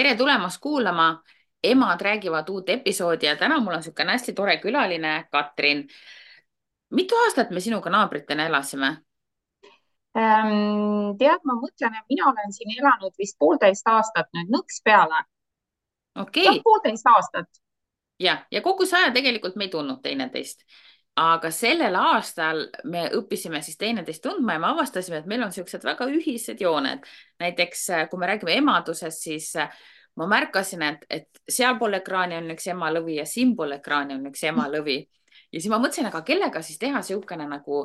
tere tulemast kuulama. Emad räägivad uut episoodi ja täna mul on niisugune hästi tore külaline, Katrin. Mitu aastat me sinuga naabritena elasime? Tead, ma mõtlen, et mina olen siin elanud vist 1,5 aastat nüüd nõks peale. Jah, Okei. 1,5 aastat. Ja kogu see aja tegelikult me ei tundnud teineteist. Aga sellel aastal me õppisime siis teineteist tundma ja me avastasime, et meil on niisugused väga ühised jooned. Näiteks kui me räägime emadusest, siis ma märkasin, et sealpool ekraani on üks emalõvi ja siinpool ekraani on üks emalõvi. Ja siis ma mõtlesin, aga kellega siis teha niisugune nagu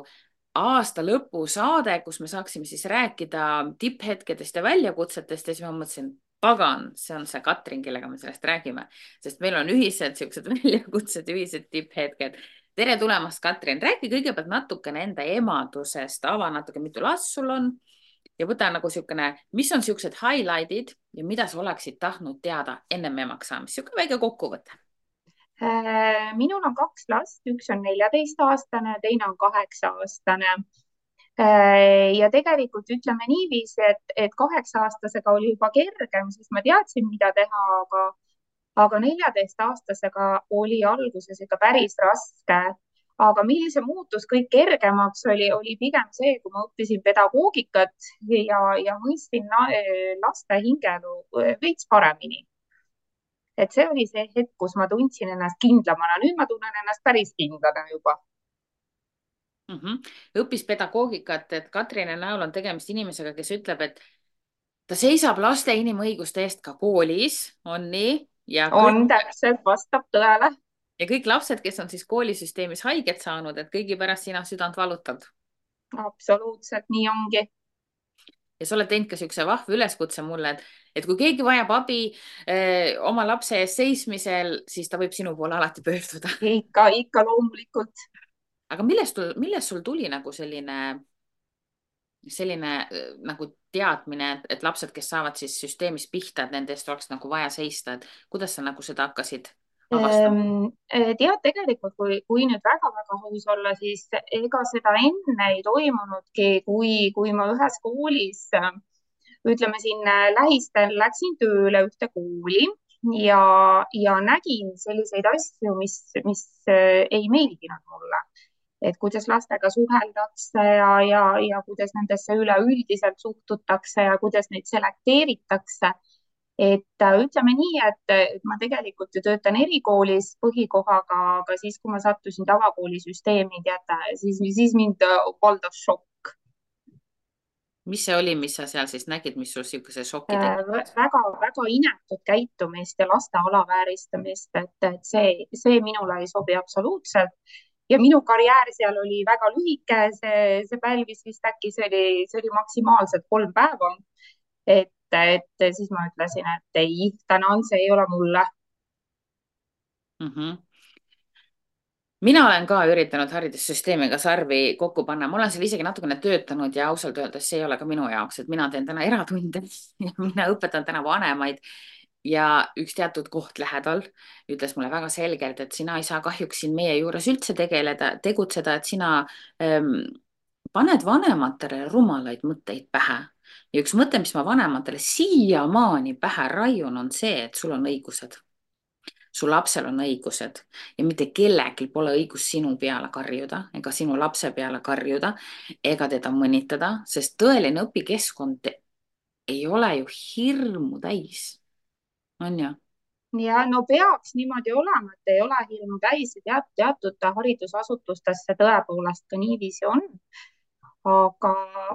aasta lõpusaade, kus me saaksime siis rääkida tipphetkedest ja väljakutsetest ja siis ma mõtlesin, pagan, see on see Katrin, kellega me sellest räägime, sest meil on ühised niisugused väljakutsed, ühised tipphetked. Tere tulemast, Katrin. Räägi kõigepealt natukene enda emadusest, ava natuke, mitu last sul on ja võta nagu niisugune, mis on niisugused highlight'id ja mida sa oleksid tahtnud teada ennem emaks saamist, niisugune väike kokkuvõte. Minul on 2 last, üks on 14-aastane, teine on 8-aastane. Ja tegelikult ütleme niiviisi, et 8-aastasega oli juba kergem, sest ma teadsin, mida teha, aga 14-aastasega oli alguses ikka päris raske. Aga millise see muutus kõik kergemaks oli pigem see, kui ma õppisin pedagoogikat ja mõistsin laste hingelu veits paremini. Et see oli see hetk, kus ma tundsin ennast kindlamana. Nüüd ma tunnen ennast päris kindlana juba. Mm -hmm. Õppis pedagoogikat, et Katrini näol on tegemist inimesega, kes ütleb, et ta seisab laste inimõiguste eest ka koolis, on nii, On täpselt, vastab tõele. ja kõik lapsed, kes on siis koolisüsteemis haiget saanud, et kõigi pärast sina südant valutad. Absoluutselt nii ongi. Ja sa oled teinud ka niisuguse vahva üleskutse mulle, et kui keegi vajab abi oma lapse eest seismisel, siis ta võib sinu poole alati pöörduda. Ikka loomulikult. Aga millest sul tuli nagu selline nagu teadmine, et lapsed, kes saavad siis süsteemis pihta, et nende eest oleks nagu vaja seista, et kuidas sa nagu seda hakkasid avastama? Tead, tegelikult, kui nüüd väga-väga aus olla, siis ega seda enne ei toimunudki, kui ma ühes koolis, ütleme siin lähistel läksin tööle ühte kooli ja, ja nägin selliseid asju, mis ei meeldinud mulle. Et kuidas lastega suheldakse ja kuidas nendesse üleüldiselt suhtutakse ja kuidas neid selekteeritakse. Et ütleme nii, et ma tegelikult ju töötan erikoolis põhikohaga, aga siis, kui ma sattusin tavakoolisüsteemi, teate, siis mind valdas šokk. Mis see oli, mis sa seal siis nägid, mis sul niisuguse šoki tekitas? Väga-väga inetut käitumist ja laste alavääristamist, et see minule ei sobi absoluutselt. Ja minu karjäär seal oli väga lühike, see pälvis vist äkki, see oli maksimaalselt 3 päeva. Et siis ma ütlesin, et ei, tänan, see ei ole mulle. Mm -hmm. Mina olen ka üritanud haridussüsteemiga sarvi kokku panna, ma olen seal isegi natukene töötanud ja ausalt öeldes see ei ole ka minu jaoks, et mina teen täna eratunde ja mina õpetan täna vanemaid ja üks teatud koht lähedal ütles mulle väga selgelt, et sina ei saa kahjuks siin meie juures üldse tegutseda, et sina ähm, paned vanematele rumalaid mõtteid pähe. Ja üks mõte, mis ma vanematele siiamaani pähe raiun, on see, et sul on õigused, su lapsel on õigused ja mitte kellelgi pole õigus sinu peale karjuda ega sinu lapse peale karjuda ega teda mõnitada, sest tõeline õpikeskkond ei ole ju hirmu täis, on ju? Ja no peaks niimoodi olema, et ei ole hirmu täis ja teatud haridusasutustes see tõepoolest ka niiviisi on. Aga,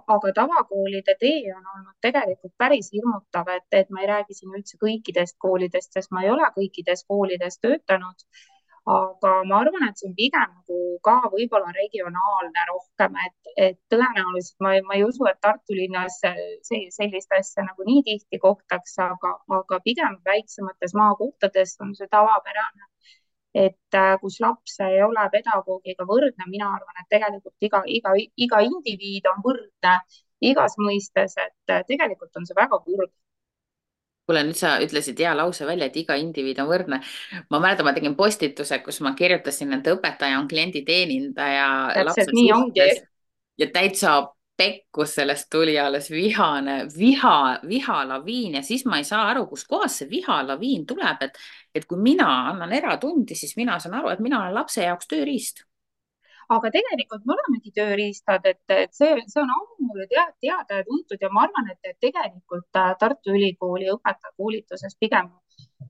aga tavakoolide tee on olnud tegelikult päris hirmutav, et ma ei räägi siin üldse kõikidest koolidest, sest ma ei ole kõikides koolides töötanud. Aga ma arvan, et see on pigem nagu ka võib-olla regionaalne rohkem, et tõenäoliselt ma ei usu, et Tartu linnas sellist asja nagu nii tihti kohtaks, aga pigem väiksemates maakohtades on see tavapärane, et kus laps ei ole pedagoogiga võrdne. Mina arvan, et tegelikult iga indiviid on võrdne igas mõistes, et tegelikult on see väga kurb. kuule, nüüd sa ütlesid hea lause välja, et iga indiviid on võrdne. Ma mäletan, ma tegin postituse, kus ma kirjutasin, et õpetaja on klienditeenindaja Täpselt lapse nii ongi. suhtes ja täitsa pekkus, sellest tuli alles vihalaviin ja siis ma ei saa aru, kuskohast see vihalaviin tuleb, et kui mina annan eratundi, siis mina saan aru, et mina olen lapse jaoks tööriist. aga tegelikult me olemegi tööriistad, et see on ammu ju teada ja tuntud ja ma arvan, et tegelikult Tartu Ülikooli õpetajakoolituses pigem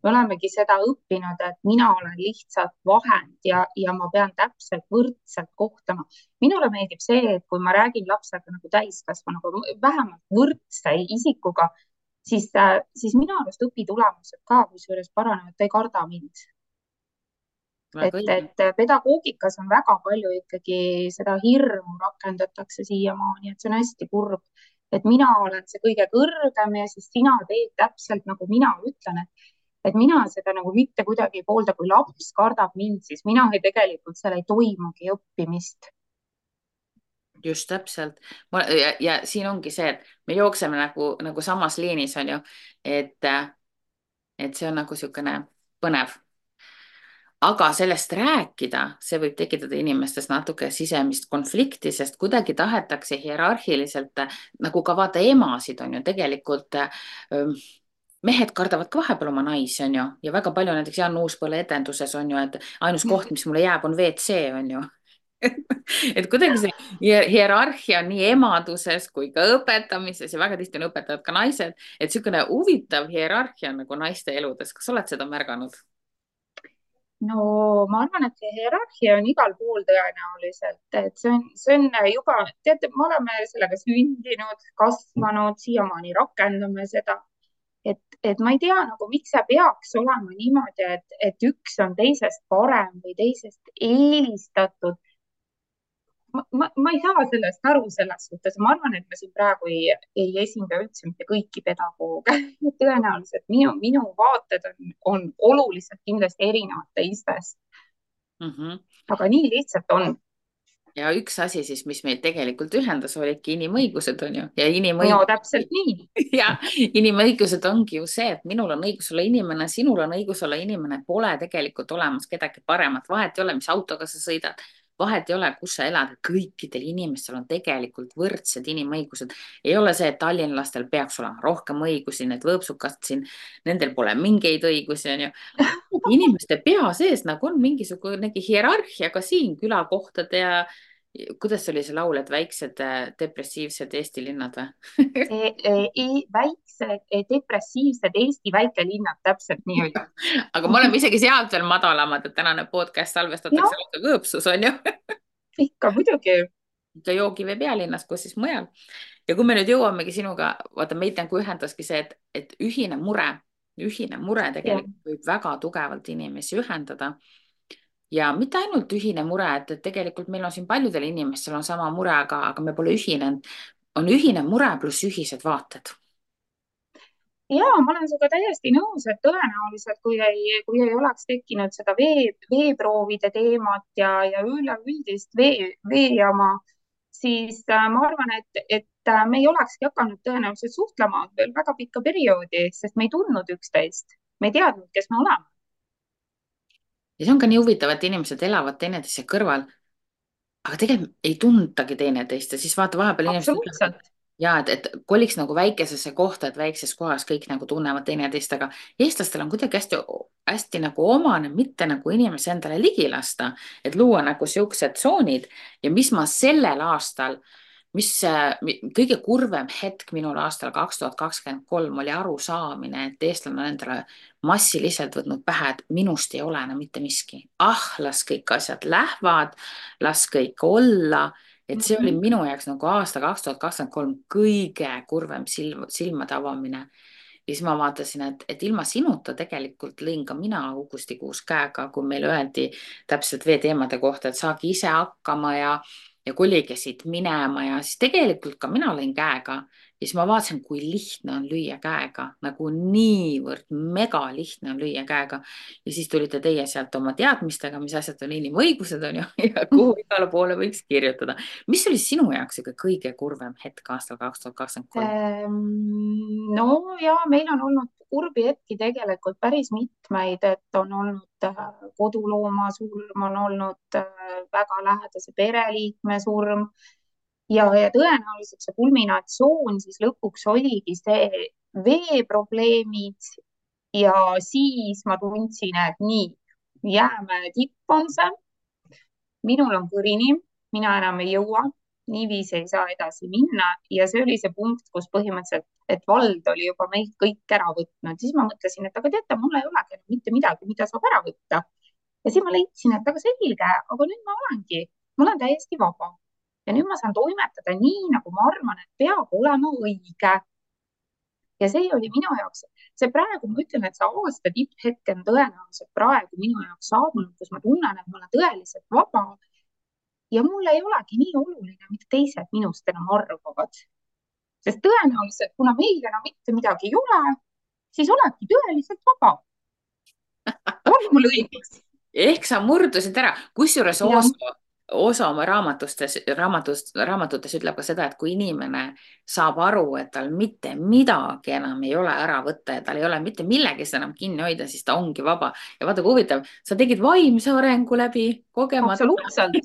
me olemegi seda õppinud, et mina olen lihtsalt vahend ja ma pean täpselt võrdselt kohtlema. Minule meeldib see, et kui ma räägin lapsega nagu täiskasvanuga, vähemalt võrdse isikuga, siis minu arust õpitulemused ka kusjuures paranevad, ta ei karda mind. Väga õige. Et pedagoogikas on väga palju ikkagi seda hirmu rakendatakse siiamaani, et see on hästi kurb, et mina olen see kõige kõrgem ja siis sina teed täpselt nagu mina ütlen, et mina seda nagu mitte kuidagi ei poolda, kui laps kardab mind, siis mina tegelikult seal ei toimugi õppimist. Just täpselt. Ja siin ongi see, et me jookseme nagu samas liinis, on ju, et, et see on nagu niisugune põnev. Aga sellest rääkida, see võib tekitada inimestes natuke sisemist konflikti, sest kuidagi tahetakse hierarhiliselt, nagu ka vaata emasid on ju tegelikult, mehed kardavad ka vahepeal oma naisi, on ju, ja väga palju näiteks Jan Uuspõlle etenduses on ju, et ainus koht, mis mulle jääb, on WC, on ju. et kuidagi see hierarhia on nii emaduses kui ka õpetamises ja väga tihti on õpetajad ka naised, et niisugune huvitav hierarhia nagu naiste eludes. Kas oled seda märganud? No ma arvan, et see hierarhia on igal pool tõenäoliselt, et see on juba, teate, me oleme sellega sündinud, kasvanud, siiamaani rakendame seda, et ma ei tea nagu, miks see peaks olema niimoodi, et üks on teisest parem või teisest eelistatud. Ma ei saa sellest aru selles suhtes, ma arvan, et me siin praegu ei esinda üldse mitte kõiki pedagooge. tõenäoliselt minu vaated on oluliselt kindlasti erinevad teistest, aga nii lihtsalt on. Ja üks asi siis, mis meid tegelikult ühendas, olidki inimõigused, on ju, ja No täpselt nii. ja inimõigused ongi ju see, et minul on õigus olla inimene, sinul on õigus olla inimene, pole tegelikult olemas kedagi paremat, vahet ei ole, mis autoga sa sõidad, vahet ei ole, kus sa elad, kõikidel inimestel on tegelikult võrdsed inimõigused. Ei ole see, et tallinlastel peaks olema rohkem õigusi, need võõpsukad siin, nendel pole mingeid õigusi, on ju. Inimeste pea sees nagu on mingisugunegi hierarhia ka siin külakohtade ja kuidas oli see laul, et väiksed depressiivsed Eesti linnad või? Väiksed depressiivsed Eesti väikelinnad, täpselt nii oli. Aga me oleme isegi sealt veel madalamad, et tänane podcast salvestatakse lausa Kõõpsus, on ju? Ikka muidugi. Ikka Joogivee pealinnas, kus siis mujal. Ja kui me nüüd jõuamegi sinuga, vaata meid nagu ühendaski see, et ühine mure tegelikult võib väga tugevalt inimesi ühendada. Ja mitte ainult ühine mure, et tegelikult meil on siin paljudel inimestel on sama mure, aga me pole ühinenud. On ühine mure pluss ühised vaated. Ja ma olen sinuga täiesti nõus, et tõenäoliselt, kui ei oleks tekkinud seda veeproovide teemat ja üleüldist veejama, siis ma arvan, et me ei olekski hakanud tõenäoliselt suhtlema veel väga pikka perioodi, sest me ei tundnud üksteist. Me ei teadnud, kes me oleme. Ja see on ka nii huvitav, et inimesed elavad teineteise kõrval, aga tegelikult ei tuntagi teineteist ja siis vaata vahepeal inimesed ütlevad, ja et koliks nagu väikesesse kohta, et väikses kohas kõik nagu tunnevad teineteist, aga eestlastel on kuidagi hästi nagu omane mitte nagu inimese endale ligi lasta, et luua nagu siuksed tsoonid ja mis ma sellel aastal, mis kõige kurvem hetk minul aastal 2023 oli arusaamine, et eestlane on endale massiliselt võtnud pähe, et minust ei ole enam mitte miski. Las kõik asjad lähevad, las kõik olla. Et see oli minu jaoks nagu aasta 2023 kõige kurvem silmade avamine. Ja siis ma vaatasin, et ilma sinuta tegelikult lõin ka mina augustikuus käega, kui meile öeldi täpselt veeteemade kohta, et saagi ise hakkama ja kolige siit minema ja siis tegelikult ka mina lõin käega ja siis ma vaatasin, kui lihtne on lüüa käega, nagu niivõrd mega lihtne on lüüa käega ja siis tulite teie sealt oma teadmistega, mis asjad on inimõigused on ju ja kuhu igale poole võiks kirjutada. Mis oli sinu jaoks kõige kurvem hetk aastal 2023? No ja meil on olnud kurbi hetki tegelikult päris mitmeid, et on olnud kodulooma surm, on olnud väga lähedase pereliikme surm ja tõenäoliselt see kulminatsioon siis lõpuks oligi see veeprobleemid ja siis ma tundsin, et nii, jäämäe tipp on see, minul on kõrini, mina enam ei jõua, niiviisi ei saa edasi minna ja see oli see punkt, kus põhimõtteliselt, et vald oli juba meilt kõik ära võtnud, siis ma mõtlesin, et aga teate, mul ei olegi enam mitte midagi, mida saab ära võtta. Ja siis ma leidsin, et aga selge, aga nüüd ma olen täiesti vaba ja nüüd ma saan toimetada nii, nagu ma arvan, et peab olema õige. Ja see oli minu jaoks, see praegu ma ütlen, et see aasta tipphetk on tõenäoliselt praegu minu jaoks saabunud, kus ma tunnen, et ma olen tõeliselt vaba ja mul ei olegi nii oluline, mida teised minust enam arvavad. Sest tõenäoliselt, kuna meil enam mitte midagi ei ole, siis oledki tõeliselt vaba. On mul õigus? ehk sa murdusid ära, kusjuures Ja, osa oma raamatutes ütleb ka seda, et kui inimene saab aru, et tal mitte midagi enam ei ole ära võtta ja tal ei ole mitte millegist enam kinni hoida, siis ta ongi vaba. Ja vaata, kui huvitav, sa tegid vaimse arengu läbi kogemata. absoluutselt,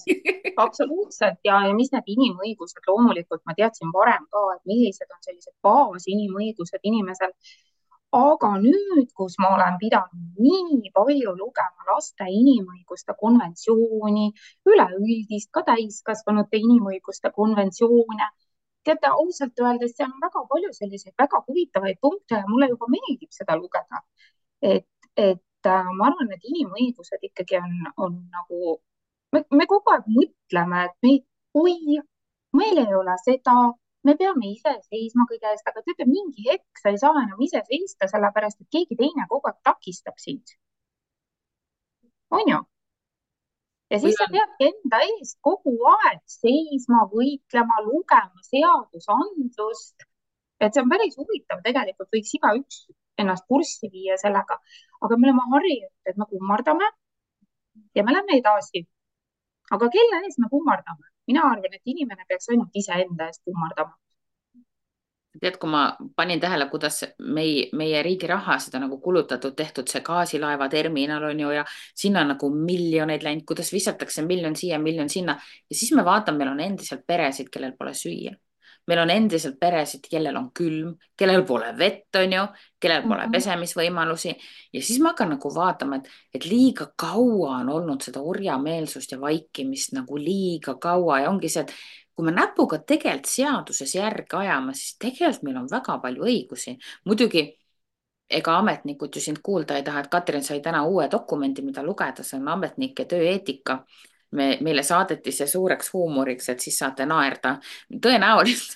absoluutselt ja mis need inimõigused, loomulikult ma teadsin varem ka, et millised on sellised baasinimõigused inimesel. Aga nüüd, kus ma olen pidanud nii palju lugema laste inimõiguste konventsiooni, üleüldist ka täiskasvanute inimõiguste konventsioone, teate, ausalt öeldes seal on väga palju selliseid väga huvitavaid punkte ja mulle juba meeldib seda lugeda. Et ma arvan, et inimõigused ikkagi on nagu, me kogu aeg mõtleme, et oi, meil ei ole seda, me peame ise seisma kõige eest, aga teate, mingi hetk sa ei saa enam ise seista, sellepärast et keegi teine kogu aeg takistab sind. On ju? Ja või siis sa on peadki enda eest kogu aeg seisma, võitlema, lugema seadusandlust. Et see on päris huvitav, tegelikult võiks igaüks ennast kurssi viia sellega, aga me oleme harjunud, et me kummardame ja me läheme edasi. Aga kelle ees me kummardame? Mina arvan, et inimene peaks ainult iseenda eest kummardama. tead, kui ma panin tähele, kuidas meie riigi rahasid on nagu kulutatud, tehtud see gaasilaeva terminal on ju ja sinna on nagu miljoneid läinud, kuidas visatakse miljon siia, miljon sinna ja siis me vaatame, meil on endiselt peresid, kellel pole süüa. meil on endiselt peresid, kellel on külm, kellel pole vett, on ju, kellel pole Mhm. pesemisvõimalusi ja siis ma hakkan nagu vaatama, et liiga kaua on olnud seda orjameelsust ja vaikimist nagu liiga kaua ja ongi see, et kui me näpuga tegelikult seaduses järge ajame, siis tegelikult meil on väga palju õigusi. muidugi ega ametnikud ju sind kuulda ei taha, et Katrin sai täna uue dokumendi, mida lugeda, see on ametnike tööeetika. Meile saadeti see suureks huumoriks, et siis saate naerda. tõenäoliselt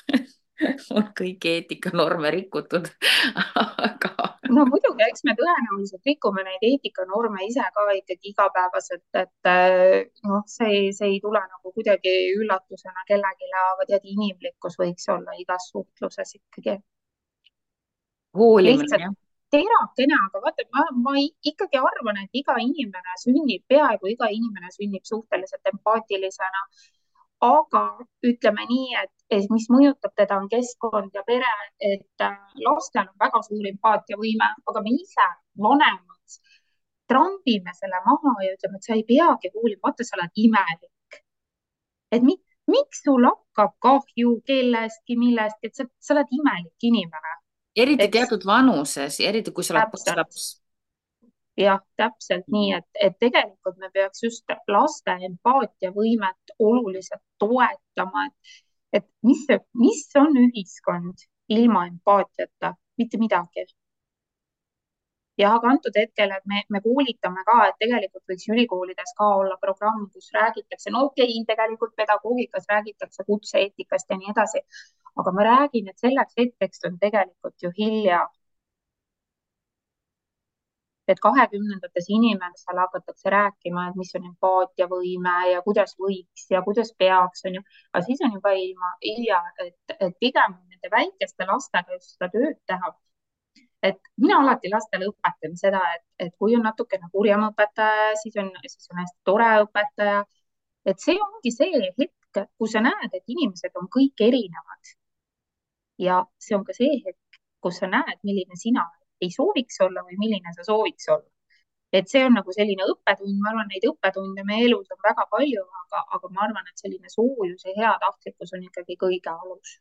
on kõiki eetikanorme rikutud aga No muidugi, eks me tõenäoliselt rikume neid eetikanorme ise ka ikkagi igapäevaselt, et noh, see ei tule nagu kuidagi üllatusena kellelegi, aga tead, inimlikkus võiks olla igas suhtluses ikkagi. hoolimine, Lihtsalt jah. terakene, aga vaata, ma ikkagi arvan, et iga inimene sünnib, peaaegu iga inimene sünnib suhteliselt empaatilisena. Aga ütleme nii, et mis mõjutab teda, on keskkond ja pere, et lastel on väga suur empaatiavõime, aga me ise, vanemad, trambime selle maha ja ütleme, et sa ei peagi hoolima, vaata, sa oled imelik. Et miks sul hakkab kahju kellestki, millestki, et sa oled imelik inimene, Eriti eks? teatud vanuses, eriti kui sa oled Täpselt. posslaps. Jah, täpselt nii, et tegelikult me peaks just laste empaatiavõimet oluliselt toetama, et mis on ühiskond ilma empaatiata, mitte midagi. Ja aga antud hetkel, et me koolitame ka, et tegelikult võiks ülikoolides ka olla programm, kus räägitakse, no okei, tegelikult pedagoogikas räägitakse kutse-eetikast ja nii edasi, aga ma räägin, et selleks hetkeks on tegelikult ju hilja, et 2020-ndates inimestel hakatakse rääkima, et mis on empaatiavõime ja kuidas võiks ja kuidas peaks, on ju, aga siis on juba hilja, et pigem nende väikeste lastega just seda tööd teha. Et mina alati lastele õpetan seda, et kui on natukene kurjem õpetaja, siis on hästi tore õpetaja. Et see ongi see hetk, kus sa näed, et inimesed on kõik erinevad. Ja see on ka see hetk, kus sa näed, milline sina ei sooviks olla või milline sa sooviks olla. et see on nagu selline õppetund, ma arvan, neid õppetunde meie elus on väga palju, aga ma arvan, et selline soojus ja heatahtlikkus on ikkagi kõige alus.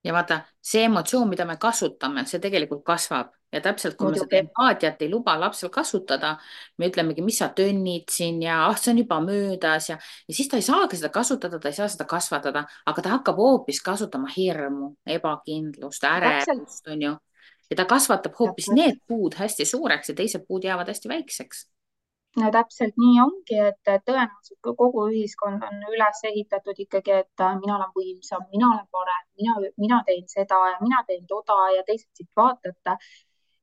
ja vaata, see emotsioon, mida me kasutame, see tegelikult kasvab ja täpselt, kui me seda muidugi, empaatiat ei luba lapsel kasutada, me ütlemegi, mis sa tönnid siin ja ah, see on juba möödas ja siis ta ei saagi seda kasutada, ta ei saa seda kasvatada, aga ta hakkab hoopis kasutama hirmu, ebakindlust, täpselt, ärevust, onju. Ja ta kasvatab hoopis täpselt. need puud hästi suureks ja teised puud jäävad hästi väikseks. No täpselt nii ongi, et tõenäoliselt kogu ühiskond on üles ehitatud ikkagi, et mina olen võimsam, mina olen parem, mina teen seda ja mina teen toda ja teised siit vaatate.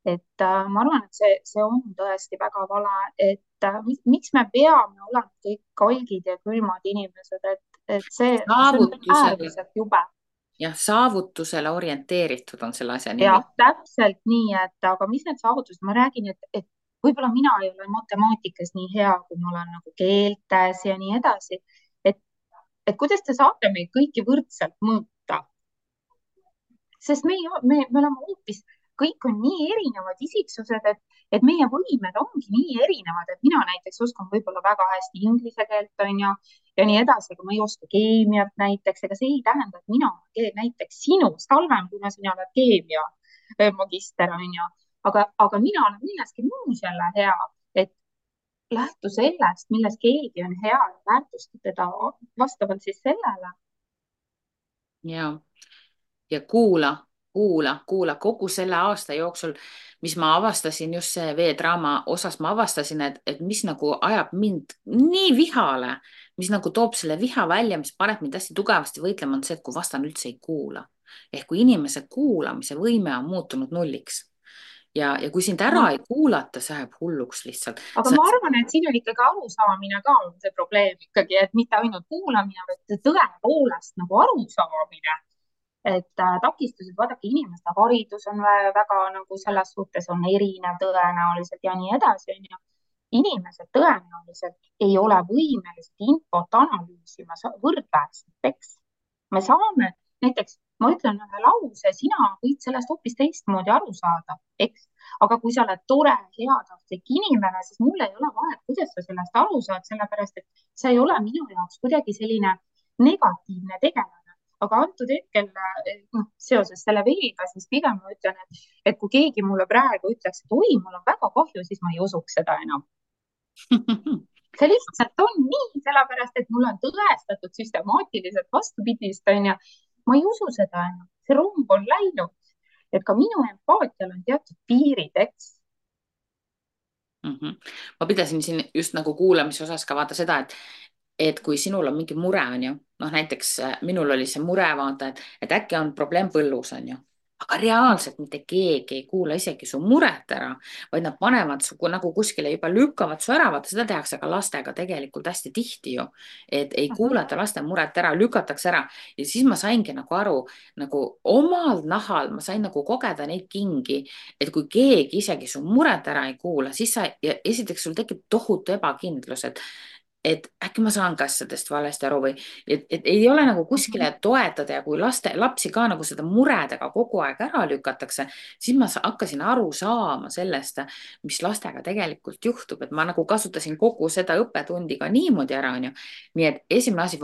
Et ma arvan, et see on tõesti väga vale, et miks me peame olema kõik kalgid ja külmad inimesed, et see on saavutusele, äärmiselt jube. jah, saavutusele orienteeritud on selle asja nimi. Jah, täpselt nii, et aga mis need saavutused, ma räägin, et võib-olla mina ei ole matemaatikas nii hea, kui ma olen nagu keeltes ja nii edasi. et, et kuidas te saate meid kõiki võrdselt mõõta, sest me oleme hoopis, kõik on nii erinevad isiksused, et meie võimed ongi nii erinevad, et mina näiteks oskan võib-olla väga hästi inglise keelt, on ju, ja nii edasi, aga ma ei oska keemiat näiteks, ega see ei tähenda, et mina olen näiteks sinust halvem, kuna sina oled keemia magister, on ju, aga mina olen milleski muus jälle hea, et lähtu sellest, milles keegi on hea ja väärtusta teda vastavalt siis sellele. ja kuula kogu selle aasta jooksul, mis ma avastasin just see veedraama osas, ma avastasin, et mis nagu ajab mind nii vihale, mis nagu toob selle viha välja, mis paneb mind hästi tugevasti võitlema, on see, et kui vastane üldse ei kuula. Ehk kui inimese kuulamise võime on muutunud nulliks ja kui sind ära No ei kuulata, see ajab hulluks lihtsalt. aga ma arvan, et siin on ikkagi arusaamine ka on see probleem ikkagi, et mitte ainult kuulamine, vaid tõepoolest nagu arusaamine, et takistused, vaadake, inimeste haridus on väga nagu selles suhtes on erinev tõenäoliselt ja nii edasi, onju. Inimesed tõenäoliselt ei ole võimelised infot analüüsima võrdväärselt, eks. Me saame, näiteks ma ütlen ühe lause, sina võid sellest hoopis teistmoodi aru saada, eks. Aga kui sa oled tore, heatahtlik inimene, siis mul ei ole vahet, kuidas sa sellest aru saad, sellepärast et sa ei ole minu jaoks kuidagi selline negatiivne tegelane. Aga antud hetkel noh, seoses selle veega, siis pigem ma ütlen, et kui keegi mulle praegu ütleks, et oi, mul on väga kahju, siis ma ei usuks seda enam. See lihtsalt on nii, sellepärast et mul on tõestatud süstemaatiliselt vastupidist, onju. Ma ei usu seda enam, see rong on läinud, et ka minu empaatial on teatud piirid, eks. Ma pidasin siin just nagu kuulamise osas ka vaata seda, et kui sinul on mingi mure, on ju, noh näiteks minul oli see mure, vaata, et äkki on probleem põllus, on ju, aga reaalselt mitte keegi ei kuula isegi su muret ära, vaid nad panevad su nagu kuskile juba lükkavad su ära, vaata seda tehakse ka lastega tegelikult hästi tihti ju, et ei kuulata laste muret ära, lükatakse ära ja siis ma saingi nagu aru nagu omal nahal, ma sain nagu kogeda neid kingi, et kui keegi isegi su muret ära ei kuula, siis sa ja esiteks sul tekib tohutu ebakindlus, et äkki ma saan ka asjadest valesti aru või et ei ole nagu kuskile toetada ja kui lapsi ka nagu seda muredega kogu aeg ära lükatakse, siis ma hakkasin aru saama sellest, mis lastega tegelikult juhtub, et ma nagu kasutasin kogu seda õppetundi ka niimoodi ära, onju. nii et esimene asi,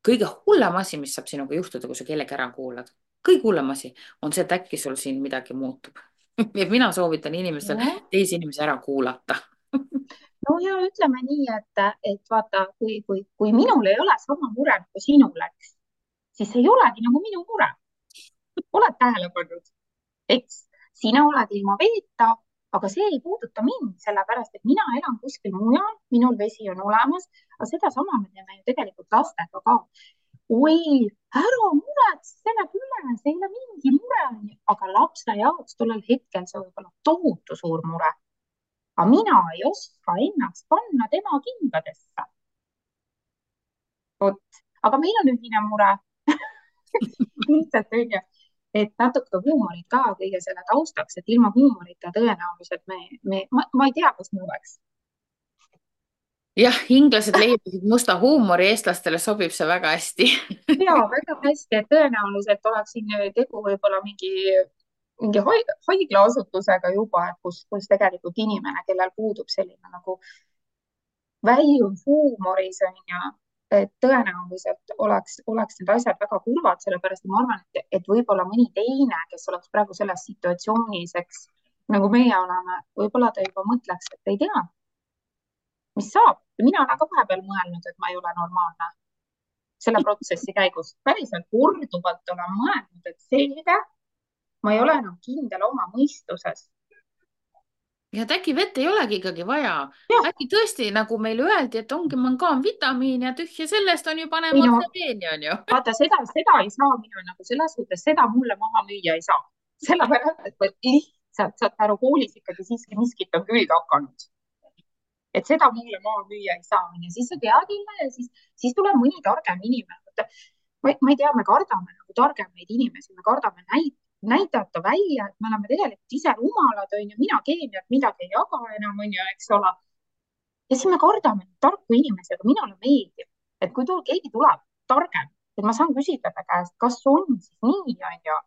kõige hullem asi, mis saab sinuga juhtuda, kui sa kellegi ära kuulad, kõige hullem asi on see, et äkki sul siin midagi muutub. ja mina soovitan inimestel jah, teisi inimesi ära kuulata. no ja ütleme nii, et vaata, kui minul ei ole sama mure kui sinul, eks, siis see ei olegi nagu minu mure. Oled tähele pannud? Eks sina oled ilma veeta, aga see ei puuduta mind, sellepärast et mina elan kuskil mujal, minul vesi on olemas, aga sedasama me teeme ju tegelikult lastega ka. oi, ära muretse, see läheb üle, see ei ole mingi mure, aga lapse jaoks tollel hetkel see võib olla tohutu suur mure. Aga mina ei oska ennast panna tema kingadesse. Vot, aga meil on ühine mure. lihtsalt onju, et natuke huumorit ka kõige selle taustaks, et ilma huumorita tõenäoliselt ma ei tea, kus me oleks. jah, inglased leiutasid musta huumori, eestlastele sobib see väga hästi. ja väga hästi, et tõenäoliselt oleks siin tegu võib-olla mingi mingi haiglaasutusega juba, et kus tegelikult inimene, kellel puudub selline nagu väljund huumoris on ju, et tõenäoliselt oleks need asjad väga kurvad, sellepärast et ma arvan, et võib-olla mõni teine, kes oleks praegu selles situatsioonis, eks nagu meie oleme, võib-olla ta juba mõtleks, et ei tea, mis saab. mina olen ka vahepeal mõelnud, et ma ei ole normaalne selle protsessi käigus. päriselt korduvalt olen mõelnud, et selge, ma ei ole enam kindel oma mõistuses. ja et äkki vett ei olegi ikkagi vaja. jah, äkki tõesti, nagu meile öeldi, et ongi mangaanvitamiin ja tühja sellest on ju, paneme ei no otse veeni, on ju. vaata, seda ei saa mina nagu selles suhtes, seda mulle maha müüa ei saa. sellepärast, et lihtsalt saad aru, koolis ikkagi siiski miskit on külge hakanud. et seda mulle maha müüa ei saa. ja siis sa tead jälle ja siis tuleb mõni targem inimene. ma ei tea, me kardame nagu targemaid inimesi, me kardame näidata välja, et me oleme tegelikult ise rumalad, on ju, mina keemiat midagi ei jaga enam, on ju, eks ole. ja siis me kardame tarku inimesi, aga minule meeldib, et kui keegi tuleb targem, et ma saan küsida ta käest, kas on siis nii, on ju.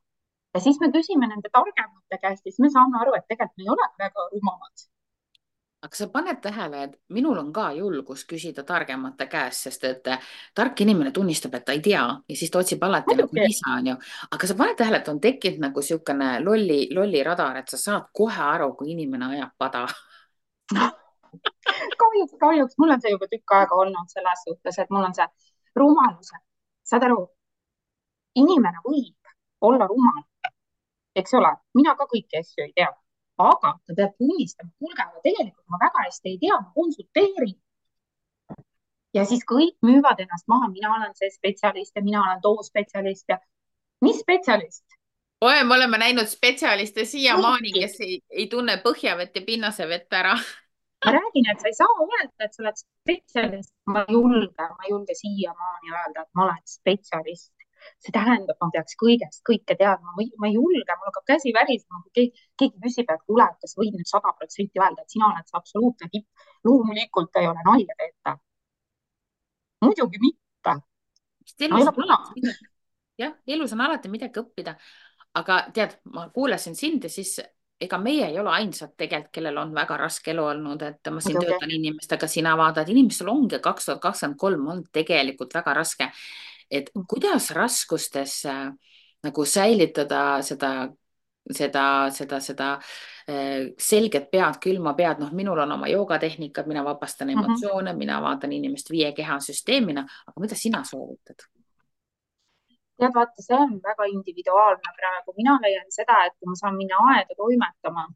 ja siis me küsime nende targemate käest ja siis me saame aru, et tegelikult me ei ole väga rumalad. aga sa paned tähele, et minul on ka julgus küsida targemate käest, sest et tark inimene tunnistab, et ta ei tea ja siis ta otsib alati nagu muidugi, lisa, on ju. aga sa paned tähele, et on tekkinud nagu niisugune lolli radar, et sa saad kohe aru, kui inimene ajab pada. kahjuks mul on see juba tükk aega olnud selles suhtes, et mul on see rumaluse, saad aru, inimene võib olla rumal, eks ole, mina ka kõiki asju ei tea, aga ta peab tunnistama, kuulge, aga tegelikult ma väga hästi ei tea, ma konsulteerin. ja siis kõik müüvad ennast maha, mina olen see spetsialist ja mina olen too spetsialist ja mis spetsialist? oi, me oleme näinud spetsialiste siiamaani, kõiki. kes ei tunne põhjavett ja pinnasevett ära. ma räägin, et sa ei saa öelda, et sa oled spetsialist, ma ei julge siiamaani öelda, et ma olen spetsialist. see tähendab, ma peaks kõike teadma, ma ei julge, mul hakkab käsi värisema, kui keegi küsib, et kuule, et kas võid nüüd 100% öelda, et sina oled see absoluutne tipp. loomulikult ei ole nalja teeta. muidugi mitte. No ei ole puna. jah, elus on alati midagi õppida. aga tead, ma kuulasin sind ja siis ega meie ei ole ainsad tegelikult, kellel on väga raske elu olnud, et ma siin muidugi. töötan inimestega, sina vaatad, inimestel ongi 2023 on tegelikult väga raske. et kuidas raskustes nagu säilitada seda selget pead, külma pead, noh, minul on oma joogatehnikad, mina vabastan emotsioone, mina vaatan inimest 5 kehasüsteemina, aga mida sina soovitad? tead, vaata, see on väga individuaalne praegu. mina leian seda, et kui ma saan minna aeda toimetama,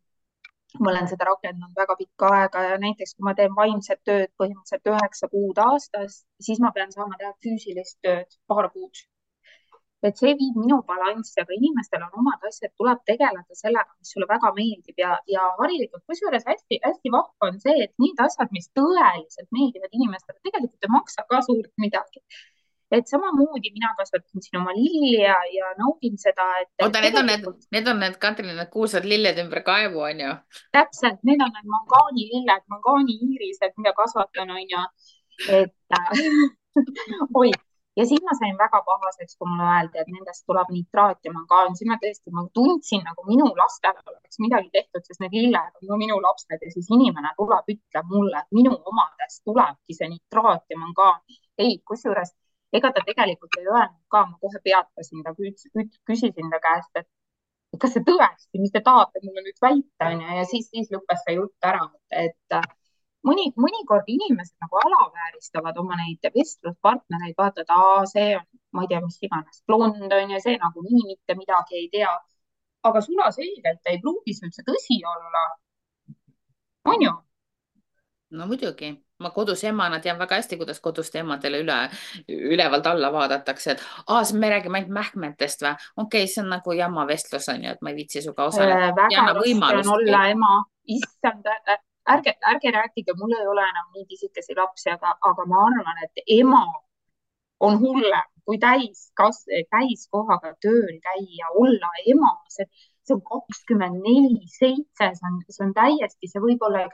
ma olen seda rakendanud väga pikka aega ja näiteks kui ma teen vaimset tööd põhimõtteliselt 9 kuud aastas, siis ma pean saama teha füüsilist tööd 2 kuud. et see viib minu balanssi, aga inimestel on omad asjad, tuleb tegeleda sellega, mis sulle väga meeldib ja harilikult, kusjuures hästi-hästi vahva on see, et need asjad, mis tõeliselt meeldivad inimestele, tegelikult ei maksa ka suurt midagi. et samamoodi mina kasvatasin siin oma lilli ja naudin seda, et oota, tegelikult need on need, Katrin, need kuulsad lilled ümber kaevu, on ju? täpselt, need on need mangaanililled, mangaaniirised, mida kasvatan, on ju, et oi, ja siis ma sain väga pahaseks, kui mulle öeldi, et nendest tuleb nitraat ja mangaan, siis ma tundsin nagu minu lastele oleks midagi tehtud, sest need lilled on ka minu lapsed ja siis inimene tuleb, ütleb mulle, et minu omadest tulebki see nitraat ja mangaan. ei, kusjuures ega ta tegelikult ei öelnud ka, ma kohe peatasin ta, küsisin ta käest, et kas see tõesti, mis te tahate mulle nüüd väita, onju, ja siis lõppes see jutt ära, et mõnikord inimesed nagu alavääristavad oma neid vestluspartnereid, vaata, et see on, ma ei tea, mis iganes, blond on ja see nagunii mitte midagi ei tea. aga sulaselgelt ei pruugi see üldse tõsi olla, on ju? no muidugi, ma kodus emana tean väga hästi, kuidas koduste emadele ülevalt alla vaadatakse, et me räägime ainult mähkmetest või? okei, see on nagu jama vestlus on ju, et ma ei viitsi sinuga osaleda. ei väga anna raske on võimalustki. olla ema, issand, ärge rääkige, mul ei ole enam nii pisikesi lapsi, aga ma arvan, et ema on hullem kui täiskohaga tööl käia, olla ema, see on 24/7, see on täiesti, see võib olla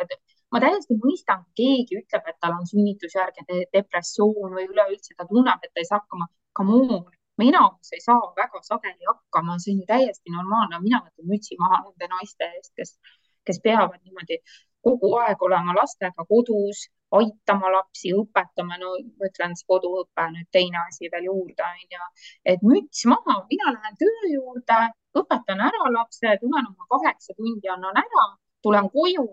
ma täiesti mõistan, kui keegi ütleb, et tal on sünnitusjärgne depressioon või üleüldse ta tunneb, et ta ei saa hakkama. Come on, mina ei saa väga sageli hakkama, see on ju täiesti normaalne, mina võtan mütsi maha nende naiste eest, kes peavad niimoodi kogu aeg olema lastega kodus, aitama lapsi, õpetama, no ma ütlen, see koduõpe on nüüd teine asi veel juurde, onju. Et müts maha, mina lähen töö juurde, õpetan ära lapse, tulen oma 8 tundi, annan ära, tulen koju.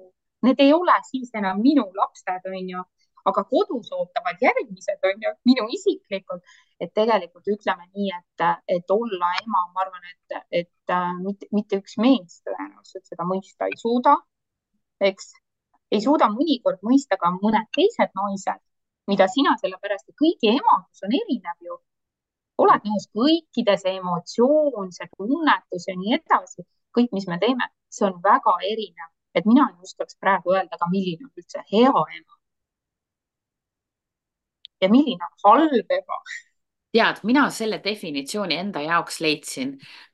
Need ei ole siis enam minu lapsed, onju, aga kodus ootavad järgmised, onju, minu isiklikult. Et tegelikult ütleme nii, et olla ema, ma arvan, et mitte üks mees tõenäoliselt seda mõista ei suuda, eks. Ei suuda mõnikord mõista ka mõned teised naised, mida sina, sellepärast et kõigi emadus on erinev ju. Oled nõus, kõikide see emotsioon, see tunnetus ja nii edasi, kõik, mis me teeme, see on väga erinev. Et mina ei oskaks praegu öelda ka, milline on üldse hea ema ja milline on halb ema. tead, mina selle definitsiooni enda jaoks leidsin.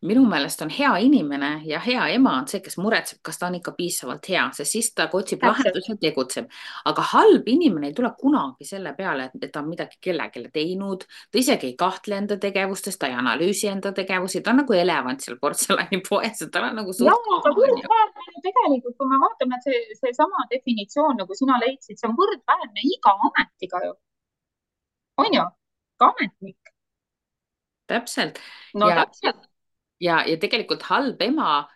Minu meelest on hea inimene ja hea ema on see, kes muretseb, kas ta on ikka piisavalt hea, sest siis ta otsib Täpselt. lahendusi ja tegutseb. Aga halb inimene ei tule kunagi selle peale, et ta on midagi kellelegi teinud. Ta isegi ei kahtle enda tegevustes, ta ei analüüsi enda tegevusi, ta on nagu elevant seal portselanipoes, tal on nagu Ja, suht aga oma, onju. võrdväärne ju tegelikult, kui me vaatame, et seesama definitsioon, nagu sina leidsid, see on võrdväärne iga ametiga ju, on ju, ka ametnik. Täpselt. No Ja, täpselt. ja tegelikult halb ema,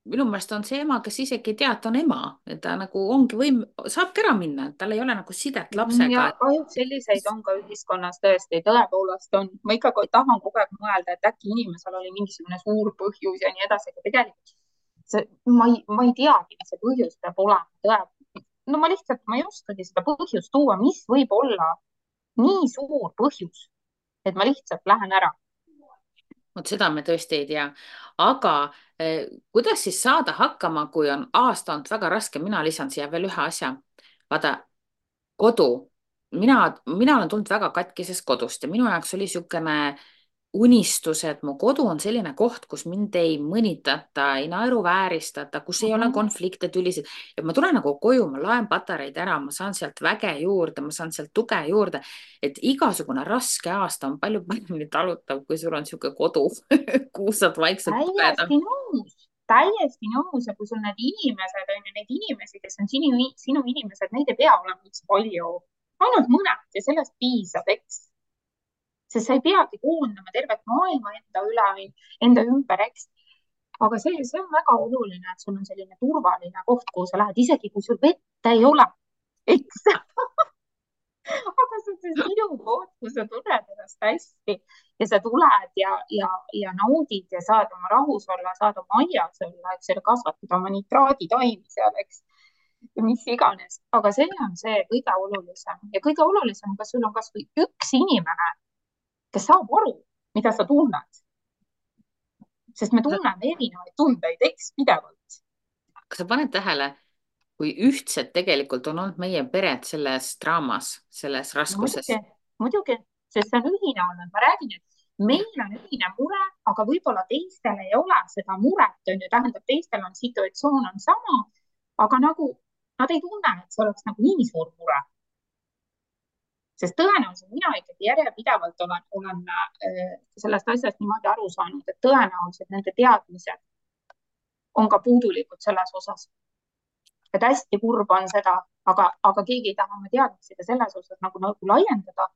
minu meelest on see ema, kes isegi ei tea, et ta on ema, et ta nagu ongi saabki ära minna, et tal ei ole nagu sidet Ja lapsega. kahjuks selliseid on ka ühiskonnas tõesti, tõepoolest on. Ma ikka tahan kogu aeg mõelda, et äkki inimesel oli mingisugune suur põhjus ja nii edasi, aga tegelikult ma ei teagi, mis see põhjus peab olema. No ma ei oskagi seda põhjust tuua, mis võib olla nii suur põhjus, et ma lihtsalt lähen ära. Vot seda me tõesti ei tea. Aga kuidas siis saada hakkama, kui on aasta olnud väga raske? Mina lisan siia veel ühe asja. Vaata, kodu. Mina olen tulnud väga katkisest kodust ja minu jaoks oli niisugune unistus, et mu kodu on selline koht, kus mind ei mõnitata, ei naeruvääristata, kus ei ole Mhm. konflikte, tülisid. Ja ma tulen nagu koju, ma laen patareid ära, ma saan sealt väge juurde, ma saan sealt tuge juurde. Et igasugune raske aasta on palju paremini talutav, kui sul on niisugune kodu, kuhu saad vaikselt pugeda. Täiesti nõus, täiesti nõus. Ja kui sul need inimesed on ju, neid inimesi, kes on sinu inimesed, neid ei pea olema üldse palju, ainult mõned ja sellest piisab, eks. Sest sa ei peagi koondama tervet maailma enda ümber, eks. Aga see on väga oluline, et sul on selline turvaline koht, kuhu sa lähed, isegi kui sul vett ei ole, eks. Aga see on sinu koht, kus sa tunned ennast hästi ja sa tuled ja naudid ja saad oma rahus olla, saad oma aias olla, eks ole, kasvatada oma nitraaditaimi seal, eks. Ja mis iganes, aga see on see kõige olulisem ja kõige olulisem, kas sul on kasvõi üks inimene, kes saab aru, mida sa tunned, sest me tunneme erinevaid tundeid, eks, pidevalt. kas sa paned tähele, kui ühtsed tegelikult on olnud meie pered selles draamas, selles No raskuses? muidugi, muidugi, sest see on ühine olnud, ma räägin, et meil on ühine mure, aga võib-olla teistel ei ole seda muret, on ju, tähendab, teistel on situatsioon on sama, aga nagu nad ei tunne, et see oleks nagu nii suur mure. Sest tõenäoliselt mina ikkagi järjepidevalt olen sellest asjast niimoodi aru saanud, et tõenäoliselt nende teadmised on ka puudulikud selles osas. Et hästi kurb on seda, aga keegi ei taha oma teadmisi ka selles osas nagu laiendada.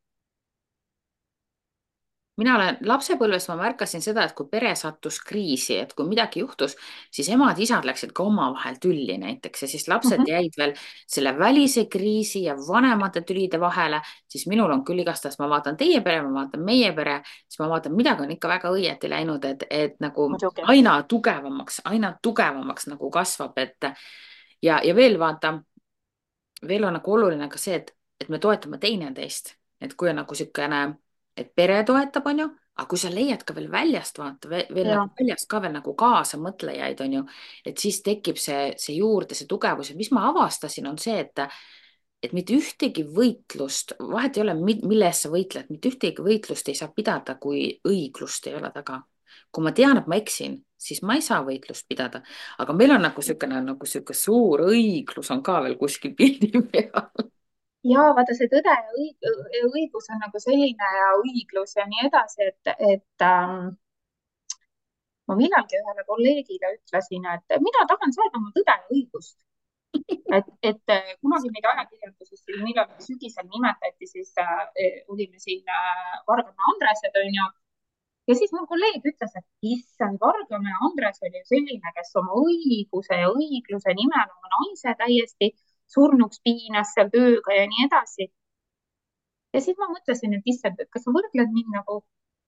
Mina olen lapsepõlves, ma märkasin seda, et kui pere sattus kriisi, et kui midagi juhtus, siis emad-isad läksid ka omavahel tülli näiteks ja siis lapsed Mhm. jäid veel selle välise kriisi ja vanemate tülide vahele, siis minul on küll igastahes, ma vaatan teie pere, ma vaatan meie pere, siis ma vaatan, midagi on ikka väga õieti läinud, et nagu Muidugi. aina tugevamaks nagu kasvab, ja veel vaata, veel on nagu oluline ka see, et me toetame teineteist, et kui on nagu niisugune, et pere toetab, on ju, aga kui sa leiad ka veel väljast, vaata veel Ja, nagu väljast ka veel nagu kaasamõtlejaid, on ju, et siis tekib see juurde, see tugevus ja mis ma avastasin, on see, et mitte ühtegi võitlust, vahet ei ole, mille eest sa võitled, mitte ühtegi võitlust ei saa pidada, kui õiglust ei ole taga. Kui ma tean, et ma eksin, siis ma ei saa võitlust pidada, aga meil on nagu niisugune suur õiglus on ka veel kuskil pildi peal. ja vaata, see tõde ja õigus on nagu selline ja õiglus ja nii edasi, et ma millalgi ühele kolleegile ütlesin, et mina tahan saada oma tõde ja õigust. et kunagi meid ajakirjanduses siin millalgi sügisel nimetati, siis olime siin Vargamäe Andresed, onju. Ja siis mu kolleeg ütles, et issand, Vargamäe Andres oli selline, kes oma õiguse ja õigluse nimel oma naise täiesti surnuks piinas seal tööga ja nii edasi. Ja siis ma mõtlesin, et issand, et kas sa võrdled mind nagu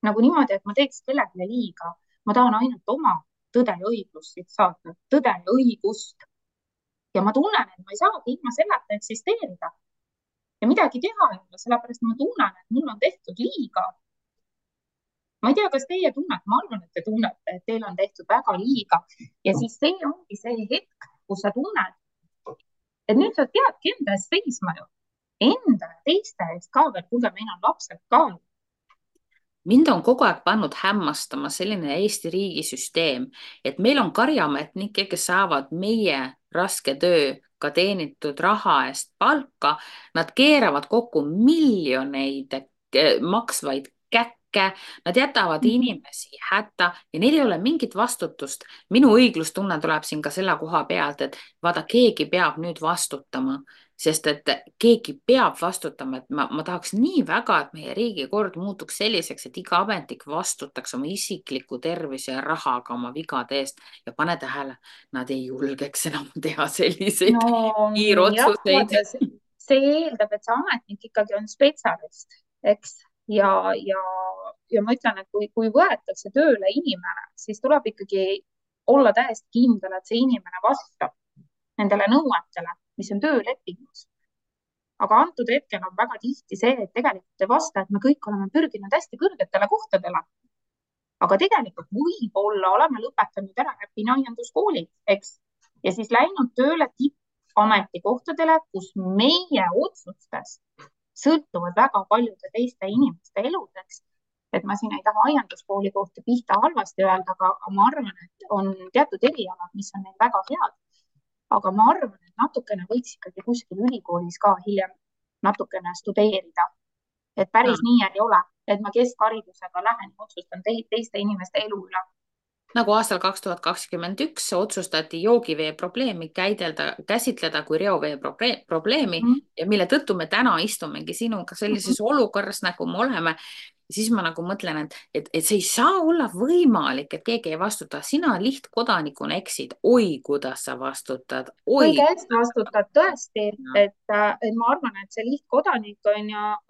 niimoodi, et ma teeks kellelegi liiga. Ma tahan ainult oma tõde ja õiglust siit saada, tõde ja õigust. Ja ma tunnen, et ma ei saagi ilma selleta eksisteerida ja midagi teha ei ole, sellepärast ma tunnen, et mulle on tehtud liiga. Ma ei tea, kas teie tunnete, ma arvan, et te tunnete, et teile on tehtud väga liiga ja siis see ongi see hetk, kus sa tunned, et nüüd sa peadki enda eest seisma ju. Enda ja teiste eest ka veel, kuulge, meil on lapsed ka. Mind on kogu aeg pannud hämmastama selline Eesti riigisüsteem, et meil on karjaametnikke, kes saavad meie raske tööga teenitud raha eest palka. Nad keeravad kokku miljoneid maksvaid käkke, nad jätavad inimesi hätta ja neil ei ole mingit vastutust. Minu õiglustunne tuleb siin ka selle koha pealt, et vaata, keegi peab nüüd vastutama, sest et keegi peab vastutama, et ma tahaks nii väga, et meie riigikord muutuks selliseks, et iga ametnik vastutaks oma isikliku tervise ja rahaga oma vigade eest ja pane tähele, nad ei julgeks enam teha selliseid No jah, kiirotsuseid. vaata, see eeldab, et see ametnik ikkagi on spetsialist, eks. Ja, ja ma ütlen, et kui võetakse tööle inimene, siis tuleb ikkagi olla täiesti kindel, et see inimene vastab nendele nõuetele, mis on töölepingus. Aga antud hetkel on väga tihti see, et tegelikult ei vasta, et me kõik oleme pürginud hästi kõrgetele kohtadele. Aga tegelikult võib-olla oleme lõpetanud ära äpinõienduskooli, eks, ja siis läinud tööle tippametikohtadele, kus meie otsustest sõltuvad väga paljude teiste inimeste eludeks. Et ma siin ei taha aianduskooli kohta pihta halvasti öelda, aga ma arvan, et on teatud erialad, mis on neil väga head. Aga ma arvan, et natukene võiks ikkagi kuskil ülikoolis ka hiljem natukene studeerida. Et päris nii ei ole, et ma keskharidusega lähen ja otsustan teiste inimeste elu üle. Nagu aastal 2021 otsustati joogivee probleemi käsitleda kui reovee probleemi ja mille tõttu me täna istumegi sinuga sellises olukorras, nagu me oleme. Siis ma nagu mõtlen, et see ei saa olla võimalik, et keegi ei vastuta. Sina lihtkodanikuna eksid. Oi, kuidas sa vastutad. Oi. Kõige eest vastutad tõesti, et ma arvan, et see lihtkodanik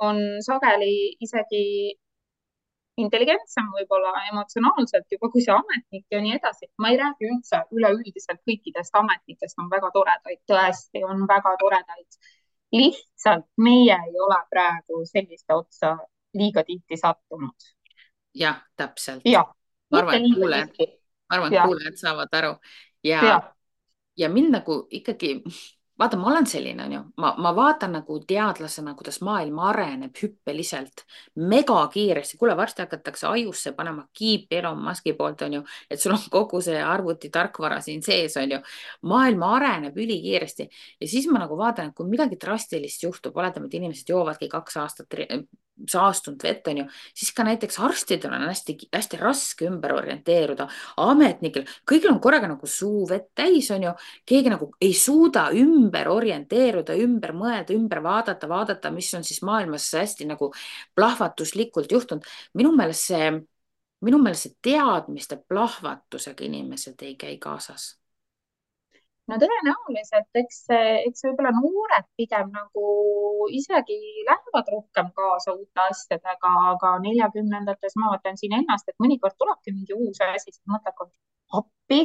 on sageli isegi intelligentsem võib-olla emotsionaalselt juba kui see ametnik ja nii edasi. Ma ei räägi üldse üleüldiselt kõikidest ametnikest, on väga toredaid, tõesti on väga toredaid. Lihtsalt meie ei ole praegu selliste otsa liiga tihti sattunud. Jah, täpselt. Ja, ma arvan, et kuulajad saavad aru ja mind nagu ikkagi vaata, ma olen selline, on ju, ma vaatan nagu teadlasena, kuidas maailm areneb hüppeliselt, megakiiresti. Kuule, varsti hakatakse ajusse panema kiipi Elon Muski poolt, on ju, et sul on kogu see arvuti tarkvara siin sees, on ju. Maailm areneb ülikiiresti ja siis ma nagu vaatan, et kui midagi drastilist juhtub, oletame, et inimesed joovadki 2 aastat saastunud vett, on ju, siis ka näiteks arstidel on hästi raske ümber orienteeruda, ametnikel, kõigil on korraga nagu suu vett täis, on ju, keegi nagu ei suuda ümber orienteeruda, ümber mõelda, ümber vaadata, mis on siis maailmas hästi nagu plahvatuslikult juhtunud. Minu meelest see teadmiste plahvatusega inimesed ei käi kaasas. No tõenäoliselt, eks võib-olla noored pigem nagu isegi lähevad rohkem kaasa uute asjadega, aga 40-ndates ma vaatan siin ennast, et mõnikord tulebki mingi uus asi, siis mõtled, appi,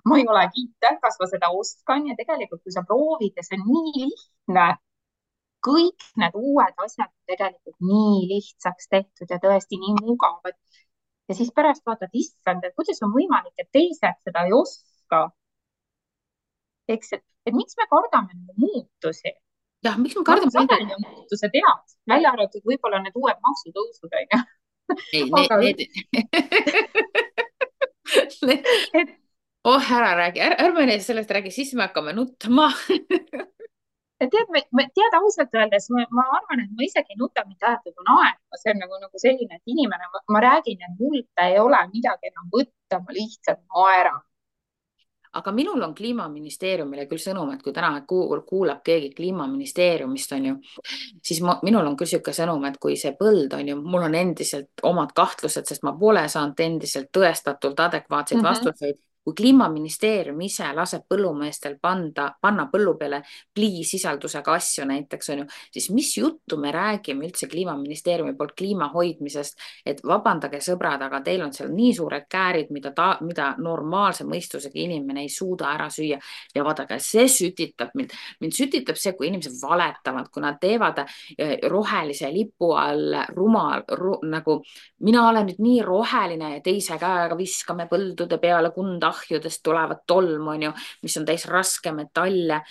ma ei ole kiiter, kas ma seda oskan ja tegelikult, kui sa proovid ja see on nii lihtne, kõik need uued asjad on tegelikult nii lihtsaks tehtud ja tõesti nii mugavad. Ja siis pärast vaatad, issand, et kuidas on võimalik, et teised seda ei oska. Eks, et miks me kardame muutusi? Jah, miks me kardame? Sageli on muutused head, välja arvatud võib-olla need uued maksutõusud, on ju. Oh, ära räägi, ärme sellest räägi, siis me hakkame nutma. tead, tead ausalt öeldes, ma arvan, et ma isegi ei nuta mitte aeg, kui naerma, see on nagu selline, et inimene, ma räägin, et mult ei ole midagi enam võtta, ma lihtsalt naeran. aga minul on Kliimaministeeriumile küll sõnum, et kui täna kuulab keegi Kliimaministeeriumist, on ju, siis minul on küll niisugune sõnum, et kui see põld on ju, mul on endiselt omad kahtlused, sest ma pole saanud endiselt tõestatult adekvaatseid Mhm. vastuseid. kui Kliimaministeerium ise laseb põllumeestel panna põllu peale pliisisaldusega asju näiteks on ju, siis mis juttu me räägime üldse Kliimaministeeriumi poolt kliima hoidmisest, et vabandage sõbrad, aga teil on seal nii suured käärid, mida normaalse mõistusega inimene ei suuda ära süüa. ja vaadake, see sütitab mind sütitab see, kui inimesed valetavad, kui nad teevad rohelise lipu all nagu mina olen nüüd nii roheline ja teise käega viskame põldude peale kundahjudest tulevat tolmu, onju, mis on täis raskmetalle.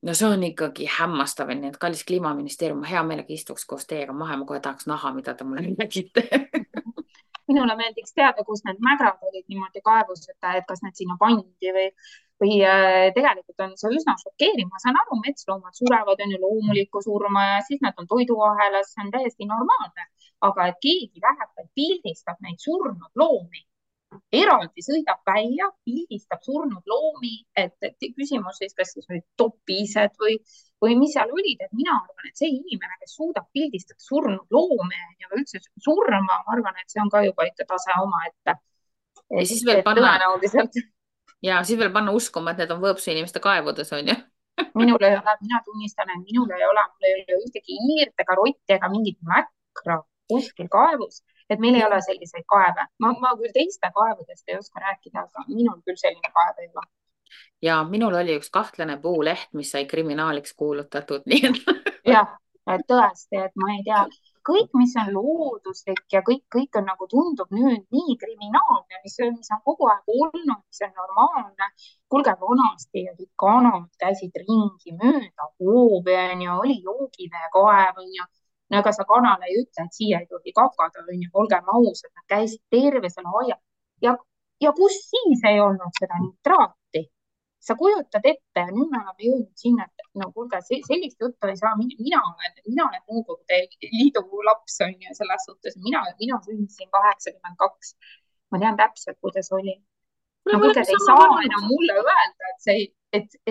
no see on ikkagi hämmastav, nii et kallis Kliimaministeerium, ma hea meelega istuks koos teiega maha, ma kohe tahaks näha, mida te mulle räägite. Minule meeldiks teada, kus need mägrad olid niimoodi kaevus, et kas need sinna pandi või tegelikult on see üsna šokeeriv. Ma saan aru, metsloomad surevad, on ju loomulikku surma ja siis nad on toiduahelas, see on täiesti normaalne. aga et keegi läheb ja pildistab neid surnud loomi, eraldi sõidab välja, pildistab surnud loomi, et küsimus siis, kas siis olid topised või mis seal olid, et mina arvan, et see inimene, kes suudab pildistada surnud loomi ja üldse surma, ma arvan, et see on ka juba ikka tase omaette. ja siis veel Et panna tõenäoliselt ja siis veel panna uskuma, et need on Võõpsu inimeste kaevudes, on ju. minul ei ole, mina tunnistan, et mul ei ole ühtegi hiirt ega rotti ega mingit mäkra kuskil kaevus, et meil ei ole selliseid kaeve. Ma küll teiste kaevudest ei oska rääkida, aga minul küll selline kaev ei ole. ja minul oli üks kahtlane puuleht, mis sai kriminaaliks kuulutatud, nii et jah, et tõesti, et ma ei tea, kõik, mis on looduslik ja kõik on nagu tundub nüüd nii kriminaalne, mis on kogu aeg olnud, mis on normaalne. kuulge, vanasti olid kanad, käisid ringi mööda hoovi, onju, oli joogiveekaev, onju. no ega sa kanale ei ütle, et siia ei tohi kakada, onju, olgem ausad, nad käisid terve selle aia ja, ja kus siis ei olnud seda nitraati? sa kujutad ette ja nüüd me oleme jõudnud sinna, et no kuulge, sellist juttu ei saa, mina olen Nõukogude Liidu laps on ju selles suhtes, mina sündisin 82. ma tean täpselt, kuidas oli. kuule, no me kuulge, oleme te ei sama saa vanad. enam mulle öelda,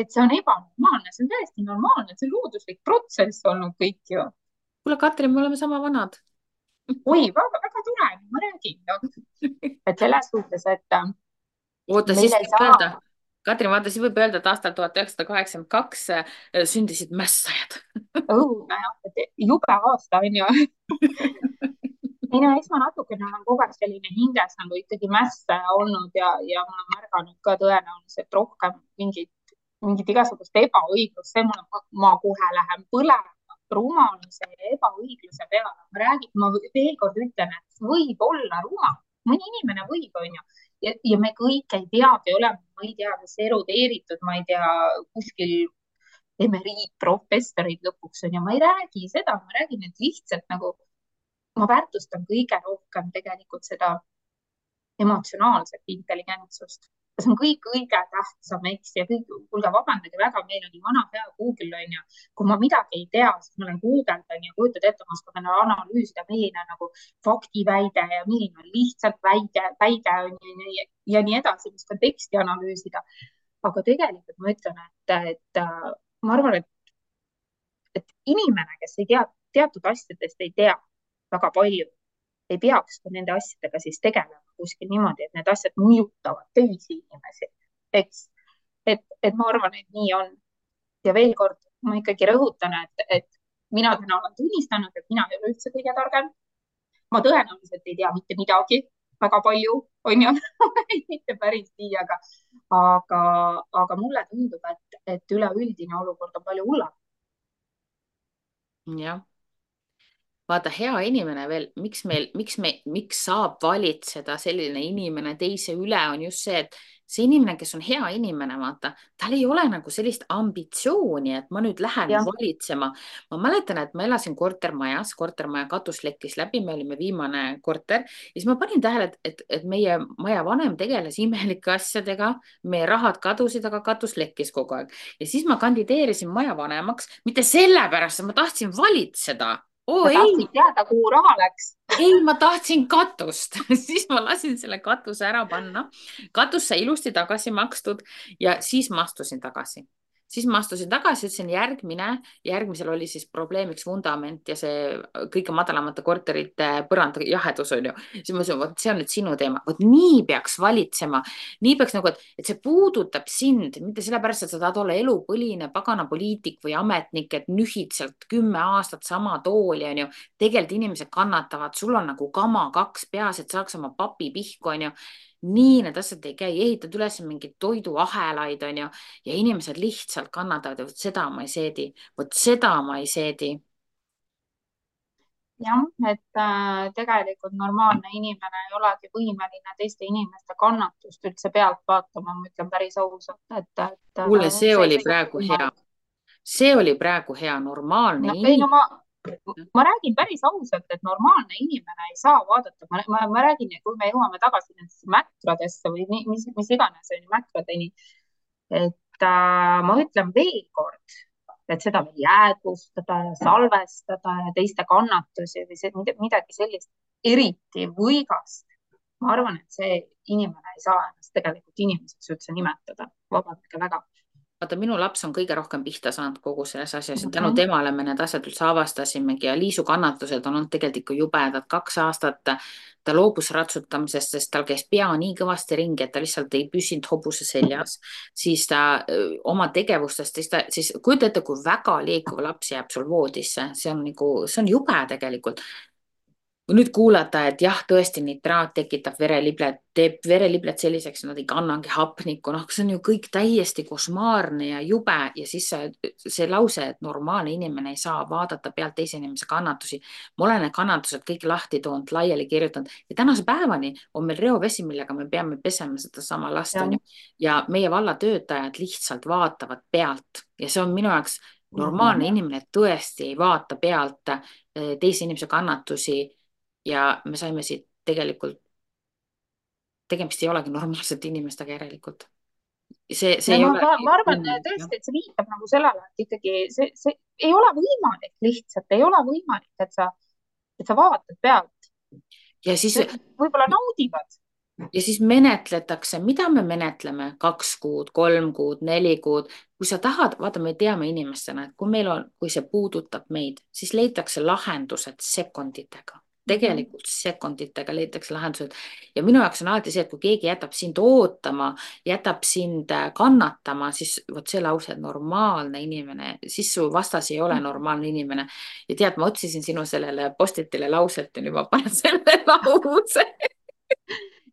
et see on ebanormaalne, see on täiesti normaalne, see on looduslik protsess olnud kõik ju. kuule, Katrin, me oleme sama vanad. oi, väga tore, ma räägin no.. et selles suhtes, et oota, meil siis ei võib saa öelda, Katrin, vaata, siis võib öelda, et aastal 1982 sündisid mässajad. õudne, et jube aasta on ju. ei no eks ma natukene olen kogu aeg selline hinges nagu ikkagi mässa olnud ja ma olen märganud ka tõenäoliselt rohkem mingit igasugust ebaõiglust, ma kohe lähen põlema rumaluse ja ebaõigluse peale. ma veel kord ütlen, et võib olla rumal, mõni inimene võib, onju. ja me kõik ei peagi olema, ma ei tea, kas erudeeritud, ma ei tea, kuskil emeriitprofessorid lõpuks onju, ma ei räägi seda, ma räägin, et lihtsalt nagu ma väärtustan kõige rohkem tegelikult seda emotsionaalset intelligentsust. see on kõige tähtsam, eks, ja kõik, kuulge, vabandage väga, meil oli vana hea Google onju. kui ma midagi ei tea, siis ma olen guugeldan ja kujutad ette, ma oskan analüüsida, milline on nagu faktiväide ja milline on lihtsalt väide on ju ja nii edasi, ma oskan teksti analüüsida. aga tegelikult ma ütlen, et ma arvan, et inimene, kes ei tea, teatud asjadest ei tea väga palju, ei peaks ka nende asjadega siis tegelema kuskil niimoodi, et need asjad mõjutavad teisi inimesi, eks. et ma arvan, et nii on. ja veel kord, ma ikkagi rõhutan, et mina täna olen tunnistanud, et mina ei ole üldse kõige targem. ma tõenäoliselt ei tea mitte midagi, väga palju, on ju mitte päris nii, aga mulle tundub, et üleüldine olukord on palju hullem. jah, vaata, hea inimene veel, miks saab valitseda selline inimene teise üle, on just see, et see inimene, kes on hea inimene, vaata, tal ei ole nagu sellist ambitsiooni, et ma nüüd lähen jah, valitsema. Ma mäletan, et ma elasin kortermajas, kortermaja katus lekkis läbi, me olime viimane korter ja siis ma panin tähele, et meie maja vanem tegeles imelike asjadega, meie rahad kadusid, aga katus lekkis kogu aeg. Ja siis ma kandideerisin maja vanemaks, mitte sellepärast, et ma tahtsin valitseda. Oo sa ei, tahtsid teada, kuhu raha läks. ei, ma tahtsin katust siis ma lasin selle katuse ära panna. Katus sai ilusti tagasi makstud ja siis ma astusin tagasi. Ütlesin järgmisel oli siis probleemiks vundament ja see kõige madalamate korterite põranda jahedus on ju. siis ma ütlesin, vot see on nüüd sinu teema, vot nii peaks valitsema, nii peaks nagu, et see puudutab sind, mitte sellepärast, et sa tahad olla elupõline pagana poliitik või ametnik, et nühid sealt 10 aastat sama tooli on ju. Tegelikult inimesed kannatavad, sul on nagu kama kaks peas, et saaks oma papi pihku on ju. Nii need asjad ei käi, ehitad üles mingeid toiduahelaid on ju ja inimesed lihtsalt kannatavad ja vot seda ma ei seedi, vot seda ma ei seedi. jah, et tegelikult normaalne inimene ei olegi võimeline teiste inimeste kannatust üldse pealt vaatama, ma ütlen päris ausalt, et kuule, see see oli ei ole praegu hea, võimalik. see oli praegu hea, normaalne No ei, no inimene. ma räägin päris ausalt, et normaalne inimene ei saa vaadata, ma räägin, kui me jõuame tagasi nendesse mäkradesse või mis iganes on ju mäkradeni, et ma ütlen veel kord, et seda veel jäädvustada ja salvestada ja teiste kannatusi või midagi sellist eriti võigast. ma arvan, et see inimene ei saa ennast tegelikult inimeseks üldse nimetada, vabandage väga. Vaata, minu laps on kõige rohkem pihta saanud kogu selles asjas ja tänu Mhm. temale me need asjad üldse avastasimegi ja Liisu kannatused on olnud tegelikult ikka jubedad. 2 aastat ta loobus ratsutamisest, sest tal käis pea nii kõvasti ringi, et ta lihtsalt ei püsinud hobuse seljas. Siis ta oma tegevustest, siis kujuta ette, kui väga liikuv laps jääb sul voodisse, see on nagu, see on jube tegelikult. Kui nüüd kuulata, et jah, tõesti nitraat tekitab vereliblet, teeb vereliblet selliseks, nad ei kannagi hapnikku, noh, see on ju kõik täiesti košmaarne ja jube ja siis see lause, et normaalne inimene ei saa vaadata pealt teise inimese kannatusi. ma olen need kannatused kõik lahti toonud, laiali kirjutanud ja tänase päevani on meil reovesi, millega me peame pesema sedasama last, Ja, onju. Ja meie valla töötajad lihtsalt vaatavad pealt ja see on minu jaoks normaalne mhm. inimene tõesti ei vaata pealt teise inimese kannatusi ja me saime siit tegelikult, tegemist ei olegi normaalsete inimestega järelikult. See Ja ei ole ma arvan võimalik, jah. tõesti, et see viitab nagu sellele, et ikkagi see ei ole võimalik, lihtsalt ei ole võimalik, et sa vaatad pealt. Ja siis, Võib-olla naudivad. ja siis menetletakse, mida me menetleme, 2 kuud, 3 kuud, 4 kuud. Kui sa tahad, vaata, me teame inimestena, et kui meil on, kui see puudutab meid, siis leitakse lahendused sekunditega. Mhm. Tegelikult sekunditega leitakse lahendused ja minu jaoks on alati see, et kui keegi jätab sind ootama, jätab sind kannatama, siis vot see lause, et normaalne inimene, siis su vastas ei ole normaalne inimene. Ja tead, ma otsisin sinu sellele postitile lauset ja nüüd ma panen selle lause.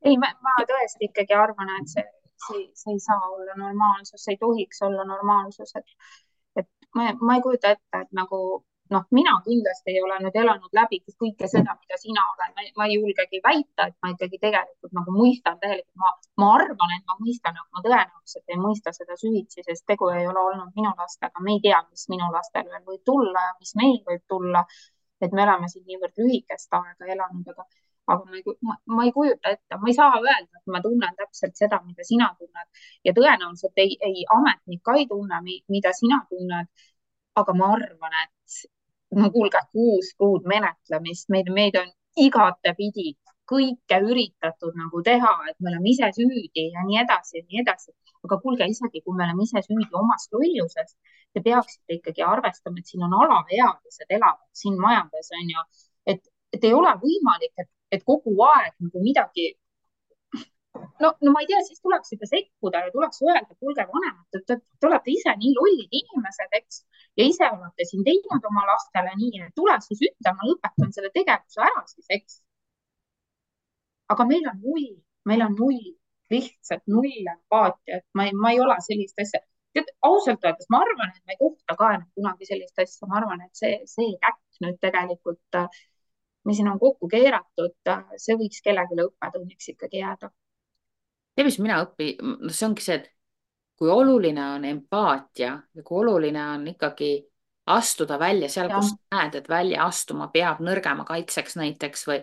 Ei, ma tõesti ikkagi arvan, et see ei saa olla normaalsus, see ei tohiks olla normaalsus, et ma ei kujuta ette, et nagu noh, mina kindlasti ei ole nüüd elanud läbi kõike seda, mida sina oled, ma ei julgegi väita, et ma ikkagi tegelikult nagu mõistan täielikult, ma arvan, et ma mõistan, aga ma tõenäoliselt ei mõista seda süvitsi, sest tegu ei ole olnud minu lastega, me ei tea, mis minu lastel veel võib tulla ja mis meil võib tulla. Et me oleme siin niivõrd lühikest aega elanud, aga ma ei kujuta ette, ma ei saa öelda, et ma tunnen täpselt seda, mida sina tunned ja tõenäoliselt ei ametnik ka ei tunne, mida sina tunned. aga ma arvan, et no kuulge, 6 kuud menetlemist, meid on igatepidi kõike üritatud nagu teha, et me oleme ise süüdi ja nii edasi ja nii edasi. aga kuulge, isegi kui me oleme ise süüdi omas lolluses, te peaksite ikkagi arvestama, et siin on alaealised elavad siin majades on ju, et ei ole võimalik, et kogu aeg nagu midagi. No ma ei tea, siis tuleks juba sekkuda ja tuleks öelda, kuulge vanemad, te olete ise nii lollid inimesed, eks, ja ise olete siin teinud oma lastele nii, et tule siis ütle, ma lõpetan selle tegevuse ära siis, eks. aga meil on null, lihtsalt null empaatiat, ma ei ole sellist asja. tead, ausalt öeldes ma arvan, et ma ei kohta ka enam kunagi sellist asja, ma arvan, et see käkk nüüd tegelikult, mis siin on kokku keeratud, see võiks kellelegi õppetunniks ikkagi jääda. tead, mis mina no see ongi see, et kui oluline on empaatia ja kui oluline on ikkagi astuda välja seal, jah, kus näed, et välja astuma peab nõrgema kaitseks näiteks või.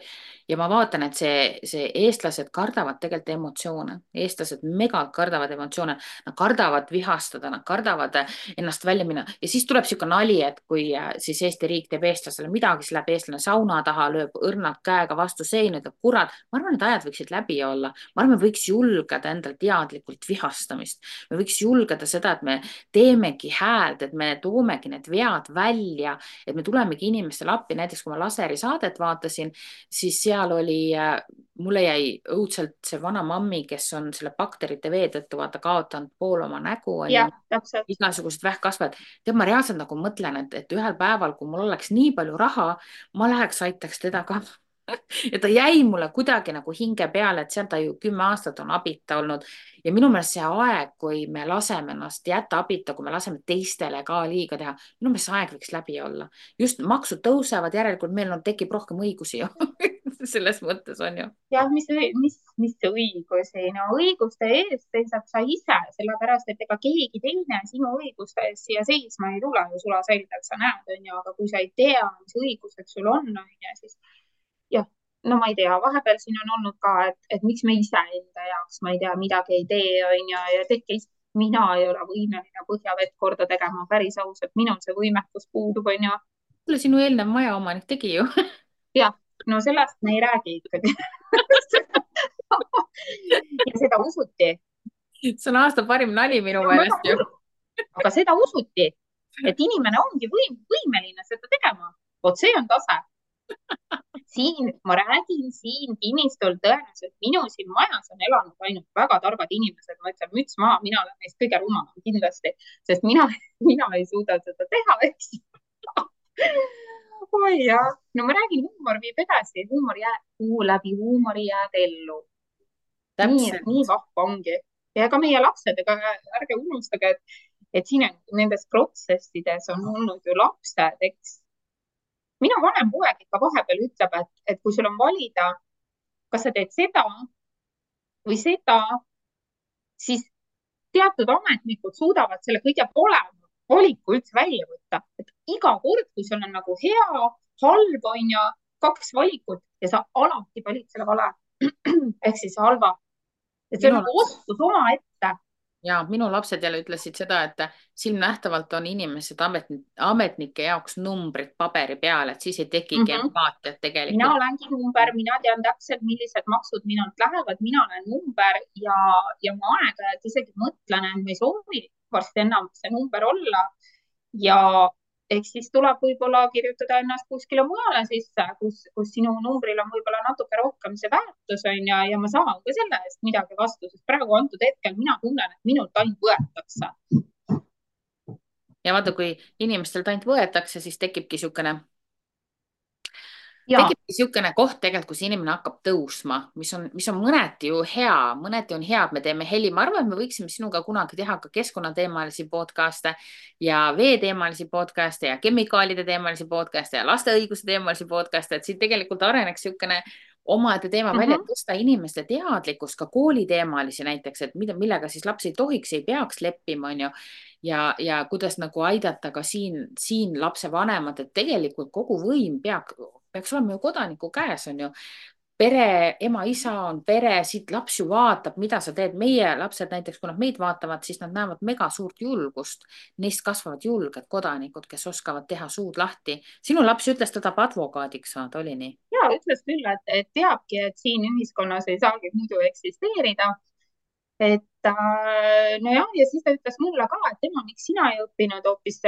ja ma vaatan, et see eestlased kardavad tegelikult emotsioone, eestlased megalt kardavad emotsioone, nad kardavad vihastada, nad kardavad ennast välja minna ja siis tuleb niisugune nali, et kui siis Eesti riik teeb eestlasele midagi, siis läheb eestlane sauna taha, lööb õrnalt käega vastu seina, ütleb kurat, ma arvan, need ajad võiksid läbi olla, ma arvan, me võiks julgeda endal teadlikult vihastamist, me võiks julgeda seda, et me teemegi häält, et me toomegi need vead välja, et me tulemegi inimestele appi. Näiteks kui ma laseri saadet vaatasin, siis seal oli, mulle jäi õudselt see vana mammi, kes on selle bakterite vee tõttu vaata kaotanud pool oma nägu, on ju, jah, täpselt. igasugused vähkkasvajad. tead, ma reaalselt nagu mõtlen, et ühel päeval, kui mul oleks nii palju raha, ma läheks, aitaks teda ka. ja ta jäi mulle kuidagi nagu hinge peale, et seal ta ju 10 aastat on abita olnud ja minu meelest see aeg, kui me laseme ennast jätta abita, kui me laseme teistele ka liiga teha, minu meelest see aeg võiks läbi olla. just maksud tõusevad, järelikult meil on, tekib rohkem õigusi ju selles mõttes on ju. jah, mis see õigusi, no õiguste eest seisad sa ise, sellepärast et ega keegi teine sinu õiguste eest siia seisma ei tule ju sulaselgelt, sa näed, onju, aga kui sa ei tea, mis õigused sul on, onju, siis jah, no ma ei tea, vahepeal siin on olnud ka, et miks me ise enda jaoks, ma ei tea, midagi ei tee, onju, ja tehke ise. Mina ei ole võimeline põhjavett korda tegema, päris ausalt, minul see võimekus puudub, onju. kuule, sinu eelnev majaomanik tegi ju jah, no sellest me ei räägi ikkagi ja seda usuti. see on aasta parim nali minu See on väga meelest ju. kurb, aga seda usuti, et inimene ongi võimeline seda tegema. vot see on tase. Siin ma räägin, siin kinnistul tõenäoliselt minu siin majas on elanud ainult väga targad inimesed, ma ütlen müts maha, mina olen neist kõige rumalam kindlasti, sest mina ei suuda seda teha, eks oi jah, no ma räägin, huumor viib edasi, läbi huumori jääd ellu. nii täpselt. vahva ongi. ja ka meie lapsed, ega ärge unustage, et siin nendes protsessides on olnud ju lapsed, eks. minu vanem poeg ikka vahepeal ütleb, et kui sul on valida, kas sa teed seda või seda, siis teatud ametnikud suudavad selle kõige parema valiku üldse välja võtta. et iga kord, kui sul on nagu hea, halb on ju, 2 valikut ja sa alati valid selle vale ehk siis halva. et see on minu nagu oskus omaette. ja minu lapsed jälle ütlesid seda, et silmnähtavalt on inimesed ametnike jaoks numbrid paberi peal, et siis ei tekigi empaatiat mina tegelikult. olengi number, mina tean täpselt, millised maksud minult lähevad, mina olen number ja ma aeg-ajalt isegi mõtlen, et ma ei soovi varsti enam see number olla. ja eks siis tuleb võib-olla kirjutada ennast kuskile mujale sisse, kus sinu numbril on võib-olla natuke rohkem see väärtus on ja ma saan ka selle eest midagi vastu, sest praegu antud hetkel mina tunnen, et minult ainult võetakse. ja vaata, kui inimestelt ainult võetakse, siis ja tekibki niisugune koht tegelikult, kus inimene hakkab tõusma, mis on mõneti ju hea, mõneti on hea, et me teeme heli. ma arvan, et me võiksime sinuga kunagi teha ka keskkonnateemalisi podcast'e ja veeteemalisi podcast'e ja kemikaalide teemalisi podcast'e ja laste õiguse teemalisi podcast'e, et siit tegelikult areneks niisugune omaette teema välja, et tõsta inimeste teadlikkust ka kooliteemalisi näiteks, et millega siis laps ei tohiks, ei peaks leppima, on ju. ja kuidas nagu aidata ka siin lapsevanemat, et tegelikult kogu võim peaks olema ju kodaniku käes, on ju. pere, ema, isa on pere, siit laps ju vaatab, mida sa teed. meie lapsed näiteks, kui nad meid vaatavad, siis nad näevad mega suurt julgust. Neist kasvavad julged kodanikud, kes oskavad teha suud lahti. sinu laps ütles, ta tahab advokaadiks saada, oli nii? ja ütles küll, et teabki, et siin ühiskonnas ei saagi muidu eksisteerida. Nojah, ja siis ta ütles mulle ka, et tema, miks sina ei õppinud hoopis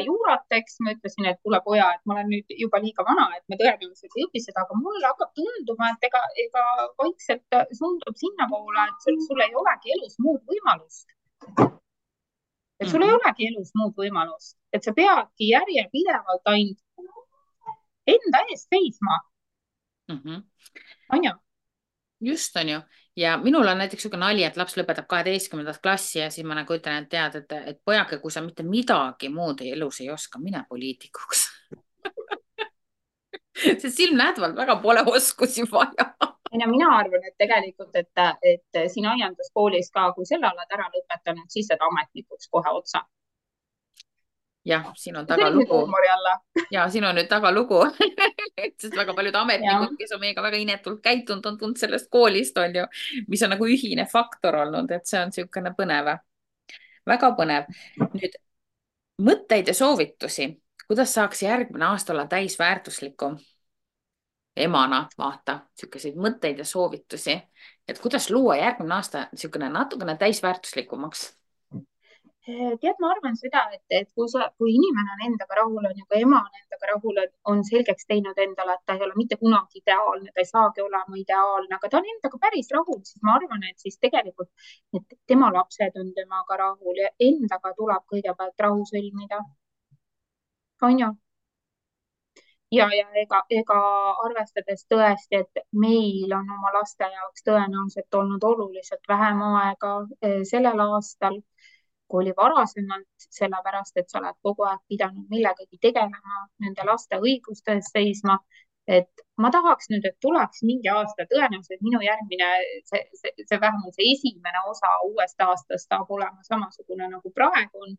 juurat, eks. ma ütlesin, et kuule poja, et ma olen nüüd juba liiga vana, et ma tõenäoliselt ei õpi seda, aga mulle hakkab tunduma, et ega vaikselt suundub sinnapoole, et sul ei olegi elus muud võimalust. et sul ei olegi elus muud võimalust, et sa peadki järjepidevalt ainult enda eest seisma. On ju? just, on ju. ja minul on näiteks niisugune nali, et laps lõpetab 12. klassi ja siis ma nagu ütlen, et tead, et pojake, kui sa mitte midagi muud elus ei oska, mine poliitikuks. Sest silmnähtavalt väga pole oskusi vaja. ei no mina arvan, et tegelikult, et siin aianduskoolis ka, kui selle oled ära lõpetanud, siis saad ametnikuks kohe otsa. jah, siin on see oli nüüd tagalugu. huumori alla. Ja siin on nüüd tagalugu. Sest väga paljud jah, ametnikud, kes on meiega väga inetult käitunud, on tulnud sellest koolist, on ju, mis on nagu ühine faktor olnud, et see on niisugune põnev, väga põnev. Nüüd mõtteid ja soovitusi, kuidas saaks järgmine aasta olla täisväärtuslikum emana, vaata, niisuguseid mõtteid ja soovitusi, et kuidas luua järgmine aasta niisugune natukene täisväärtuslikumaks. tead, ma arvan seda, et kui inimene on endaga rahul, on ju, kui ema on endaga rahul, on selgeks teinud endale, et ta ei ole mitte kunagi ideaalne, ta ei saagi olema ideaalne, aga ta on endaga päris rahul, siis ma arvan, et siis tegelikult, et tema lapsed on temaga rahul ja endaga tuleb kõigepealt rahu sõlmida. on ju? ja ega arvestades tõesti, et meil on oma laste jaoks tõenäoliselt olnud oluliselt vähem aega sellel aastal, kui oli varasemalt, sellepärast et sa oled kogu aeg pidanud millegagi tegelema, nende laste õiguste eest seisma. et ma tahaks nüüd, et tuleks mingi aasta, tõenäoliselt minu järgmine, vähemalt see esimene osa uuest aastast saab olema samasugune nagu praegu on.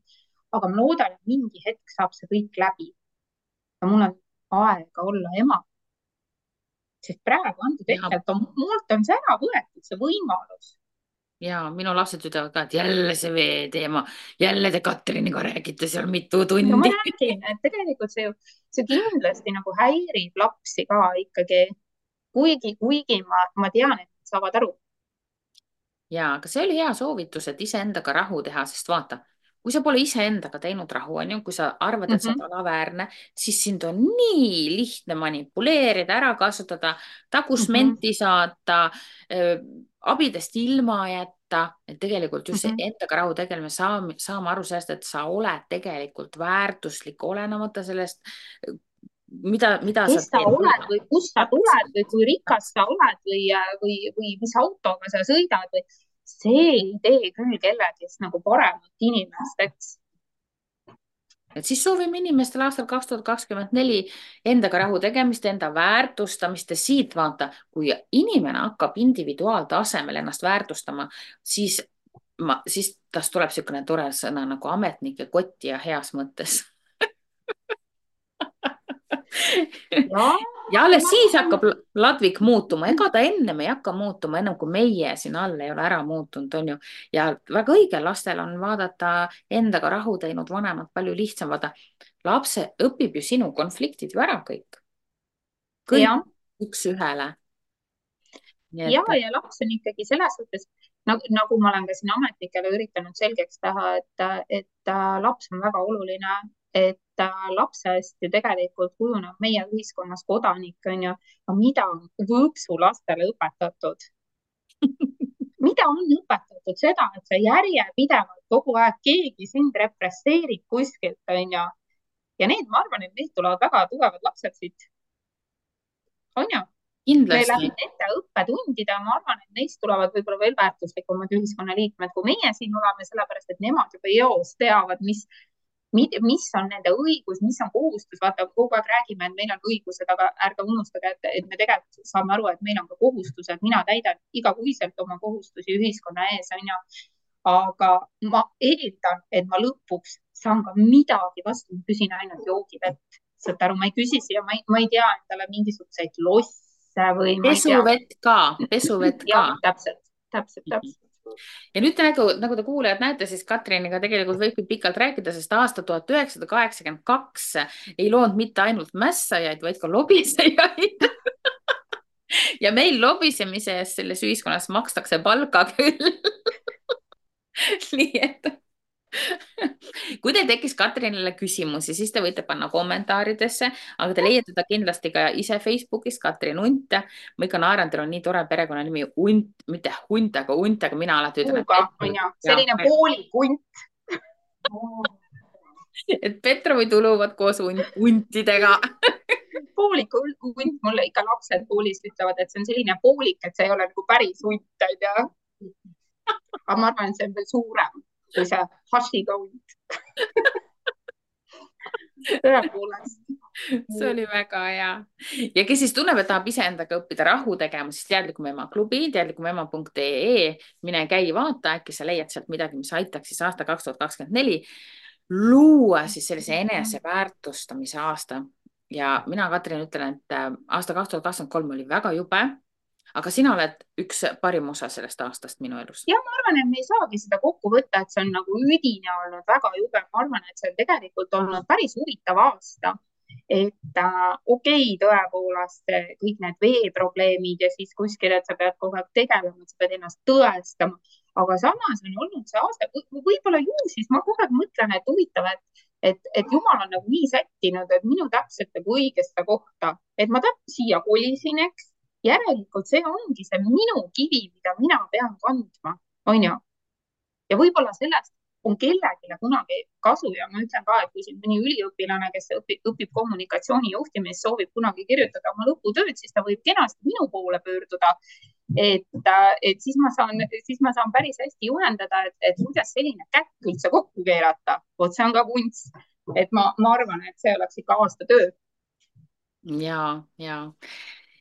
aga ma loodan, et mingi hetk saab see kõik läbi ja mul on aega olla ema. sest praegu antud hetkel, et mult on see ära võetud, see võimalus. Ja minu lapsed ütlevad ka, et jälle see veeteema, jälle te Katriniga räägite seal mitu tundi. no ma räägin, et tegelikult see kindlasti nagu häirib lapsi ka ikkagi, kuigi ma tean, et nad saavad aru. Ja, aga see oli hea soovitus, et iseendaga rahu teha, sest vaata, kui sa pole iseendaga teinud rahu, on ju, kui sa arvad, et sa oled alaväärne, siis sind on nii lihtne manipuleerida, ära kasutada, tagusmenti saata, abidest ilma jätta, et tegelikult just see endaga rahu tegelemine, saame aru sellest, et sa oled tegelikult väärtuslik, olenemata sellest, mida kes sa teed. oled või kust sa tuled või kui rikas sa oled või mis autoga sa sõidad või see ei tee küll kellegist nagu paremat inimest, eks. Et siis soovime inimestele aastal 2024 endaga rahu tegemist, enda väärtustamist ja siit vaata, kui inimene hakkab individuaaltasemel ennast väärtustama, siis tast tuleb niisugune tore sõna nagu ametnike kotti ja heas mõttes. Ja alles siis hakkab ladvik muutuma, ega ta ennem ei hakka muutuma, ennem kui meie siin all ei ole ära muutunud, on ju. Ja väga õige, lastel on vaadata endaga rahu teinud vanemad palju lihtsam, vaata. Lapse õpib ju sinu konfliktid ju ära kõik. Kõik üks ühele. Ja laps on ikkagi selles suhtes, nagu ma olen ka siin ametnikele üritanud selgeks teha, et laps on väga oluline, et lapsest ju tegelikult kujuneb meie ühiskonnas kodanik, on ju, mida on võõpsulastele õpetatud? mida on õpetatud seda, et sa järjepidevalt kogu aeg keegi sind represseerib kuskilt, on ju. Ja need, ma arvan, et neist tulevad väga tugevad lapsed siit. On ju? Kindlasti. Nende õppetundide, ma arvan, et neist tulevad võib-olla veel väärtuslikumad ühiskonnaliikmed, kui meie siin oleme, sellepärast et nemad juba eos teavad, mis on nende õigus, mis on kohustus. Vaata, kogu aeg räägime, et meil on õigused, aga ärge unustage, et me tegelikult saame aru, et meil on ka kohustused. Mina täidan igakuiselt oma kohustusi ühiskonna ees, on ju. Aga ma eeldan, et ma lõpuks saan ka midagi vastu, ma küsin ainult joogivett. Saad aru, ma ei küsi siia, ma ei tea endale mingisuguseid losse või pesuvett ka. Jah, täpselt. Ja nüüd nagu te kuulajad näete, siis Katriniga tegelikult võibki pikalt rääkida, sest aasta 1982 ei loonud mitte ainult mässajaid, vaid ka lobisejaid. Ja meil lobisemise eest selles ühiskonnas makstakse palka küll. Nii et kui teil tekkis Katrinile küsimusi, siis te võite panna kommentaaridesse, aga te leiate ta kindlasti ka ise Facebookis, Katrin Unt. Ma ikka naeran, teil on nii tore perekonnanimi Unt, mitte Hunt, aga Unt, aga mina alati ütlen. Selline poolik Unt. Et Petrovi tuluvad koos untidega. pooliku hunt, mulle ikka lapsed koolis ütlevad, et see on selline poolik, et see ei ole nagu päris hunt, onju. aga ma arvan, et see on veel suurem kui see Hashiga hunt. tõepoolest. see oli väga hea. ja kes siis tunneb, et tahab iseendaga õppida rahu tegema, siis Teadlikum Ema klubi, teadlikumema.ee, mine käi, vaata, äkki sa leiad sealt midagi, mis aitaks siis aasta 2024 luua siis sellise eneseväärtustamise aasta. ja mina, Katrin, ütlen, et aasta 2023 oli väga jube, aga sina oled üks parim osa sellest aastast minu elus. ja ma arvan, et me ei saagi seda kokku võtta, et see on nagu üdine olnud, väga jube. ma arvan, et see on tegelikult olnud päris huvitav aasta. et okei, tõepoolest kõik need veeprobleemid ja siis kuskil, et sa pead kogu aeg tegelema, sa pead ennast tõestama, aga samas on olnud see aasta, võib-olla ju siis ma kogu aeg mõtlen, et huvitav, et Jumal on nagu nii sättinud, et minu täpselt nagu õigesse kohta, et ma siia kolisin, eks. järelikult see ongi see minu kivi, mida mina pean kandma, onju. ja võib-olla sellest on kellelegi kunagi kasu ja ma ütlen ka, et kui siin mõni üliõpilane, kes õpib kommunikatsiooni juhtimist, soovib kunagi kirjutada oma lõputööd, siis ta võib kenasti minu poole pöörduda. et siis ma saan päris hästi juhendada, et kuidas selline käkk üldse kokku keerata. vot see on ka kunst. et ma arvan, et see oleks ikka aasta töö. ja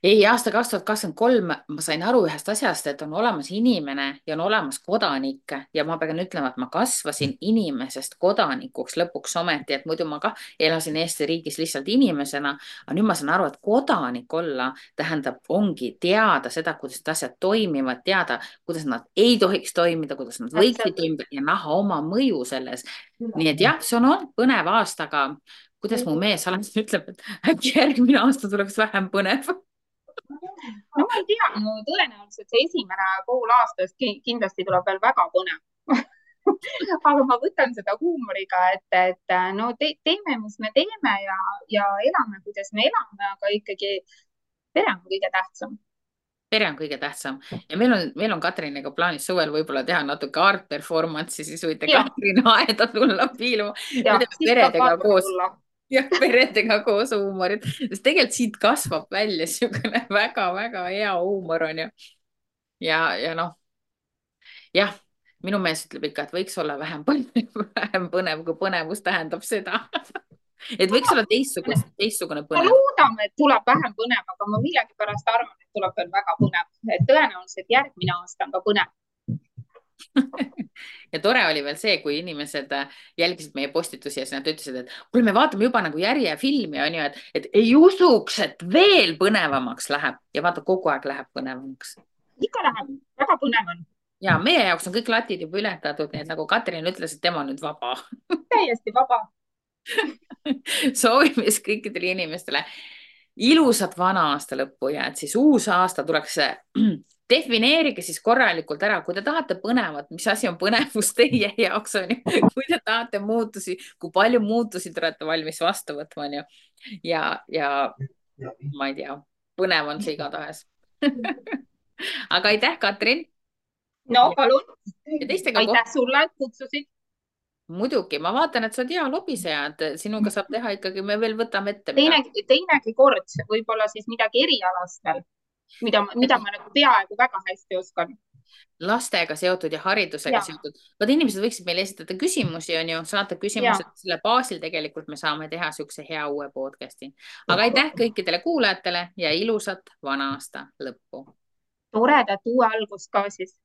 ei, aasta 2023 ma sain aru ühest asjast, et on olemas inimene ja on olemas kodanik ja ma pean ütlema, et ma kasvasin inimesest kodanikuks lõpuks ometi, et muidu ma ka elasin Eesti riigis lihtsalt inimesena, aga nüüd ma saan aru, et kodanik olla tähendab, ongi teada seda, kuidas need asjad toimivad, teada, kuidas nad ei tohiks toimida, kuidas nad võiksid toimida ja näha oma mõju selles. nii et jah, see on olnud põnev aasta, aga kuidas mu mees alati ütleb, et äkki järgmine aasta tuleks vähem põnev. no ma ei tea, no tõenäoliselt see esimene pool aastast kindlasti tuleb veel väga põnev aga ma võtan seda huumoriga, et no teeme, mis me teeme ja elame, kuidas me elame, aga ikkagi pere on kõige tähtsam. pere on kõige tähtsam ja meil on Katriniga plaanis suvel võib-olla teha natuke art performance'i, siis võite Katrin aeda tulla piiluma. peredega koos. jah, peredega koos huumorit, sest tegelikult siit kasvab välja niisugune väga-väga hea huumor on ju. ja noh, jah, minu mees ütleb ikka, et võiks olla vähem põnev, kui põnevus tähendab seda et võiks olla teistsugune põnev. loodame, et tuleb vähem põnev, aga ma millegipärast arvan, et tuleb veel väga põnev, et tõenäoliselt järgmine aasta on ka põnev ja tore oli veel see, kui inimesed jälgisid meie postitusi ja siis nad ütlesid, et kuule, me vaatame juba nagu järjefilmi on ju, et ei usuks, et veel põnevamaks läheb ja vaata, kogu aeg läheb põnevamaks. ikka läheb, väga põnev on. ja meie jaoks on kõik latid juba ületatud, nii et nagu Katrin ütles, et tema on nüüd vaba. täiesti vaba. soovime siis kõikidele inimestele ilusat vana aasta lõppu ja et siis uus aasta tuleks defineerige siis korralikult ära, kui te tahate põnevat, mis asi on põnevus teie jaoks on ju, kui te tahate muutusi, kui palju muutusi te olete valmis vastu võtma on ju. ja ma ei tea, põnev on see igatahes aga aitäh, Katrin. no palun. aitäh sulle, et kutsusid. muidugi, ma vaatan, et sa oled hea lobiseja, et sinuga saab teha ikkagi, me veel võtame ette. teinegi kord, võib-olla siis midagi erialast veel. mida ma nagu peaaegu väga hästi oskan. lastega seotud ja haridusega seotud. Vaat inimesed võiksid meile esitada küsimusi, on ju, saata küsimused, selle baasil tegelikult me saame teha niisuguse hea uue podcast'i. aga aitäh kõikidele kuulajatele ja ilusat vana aasta lõppu. toredat uue algust ka siis.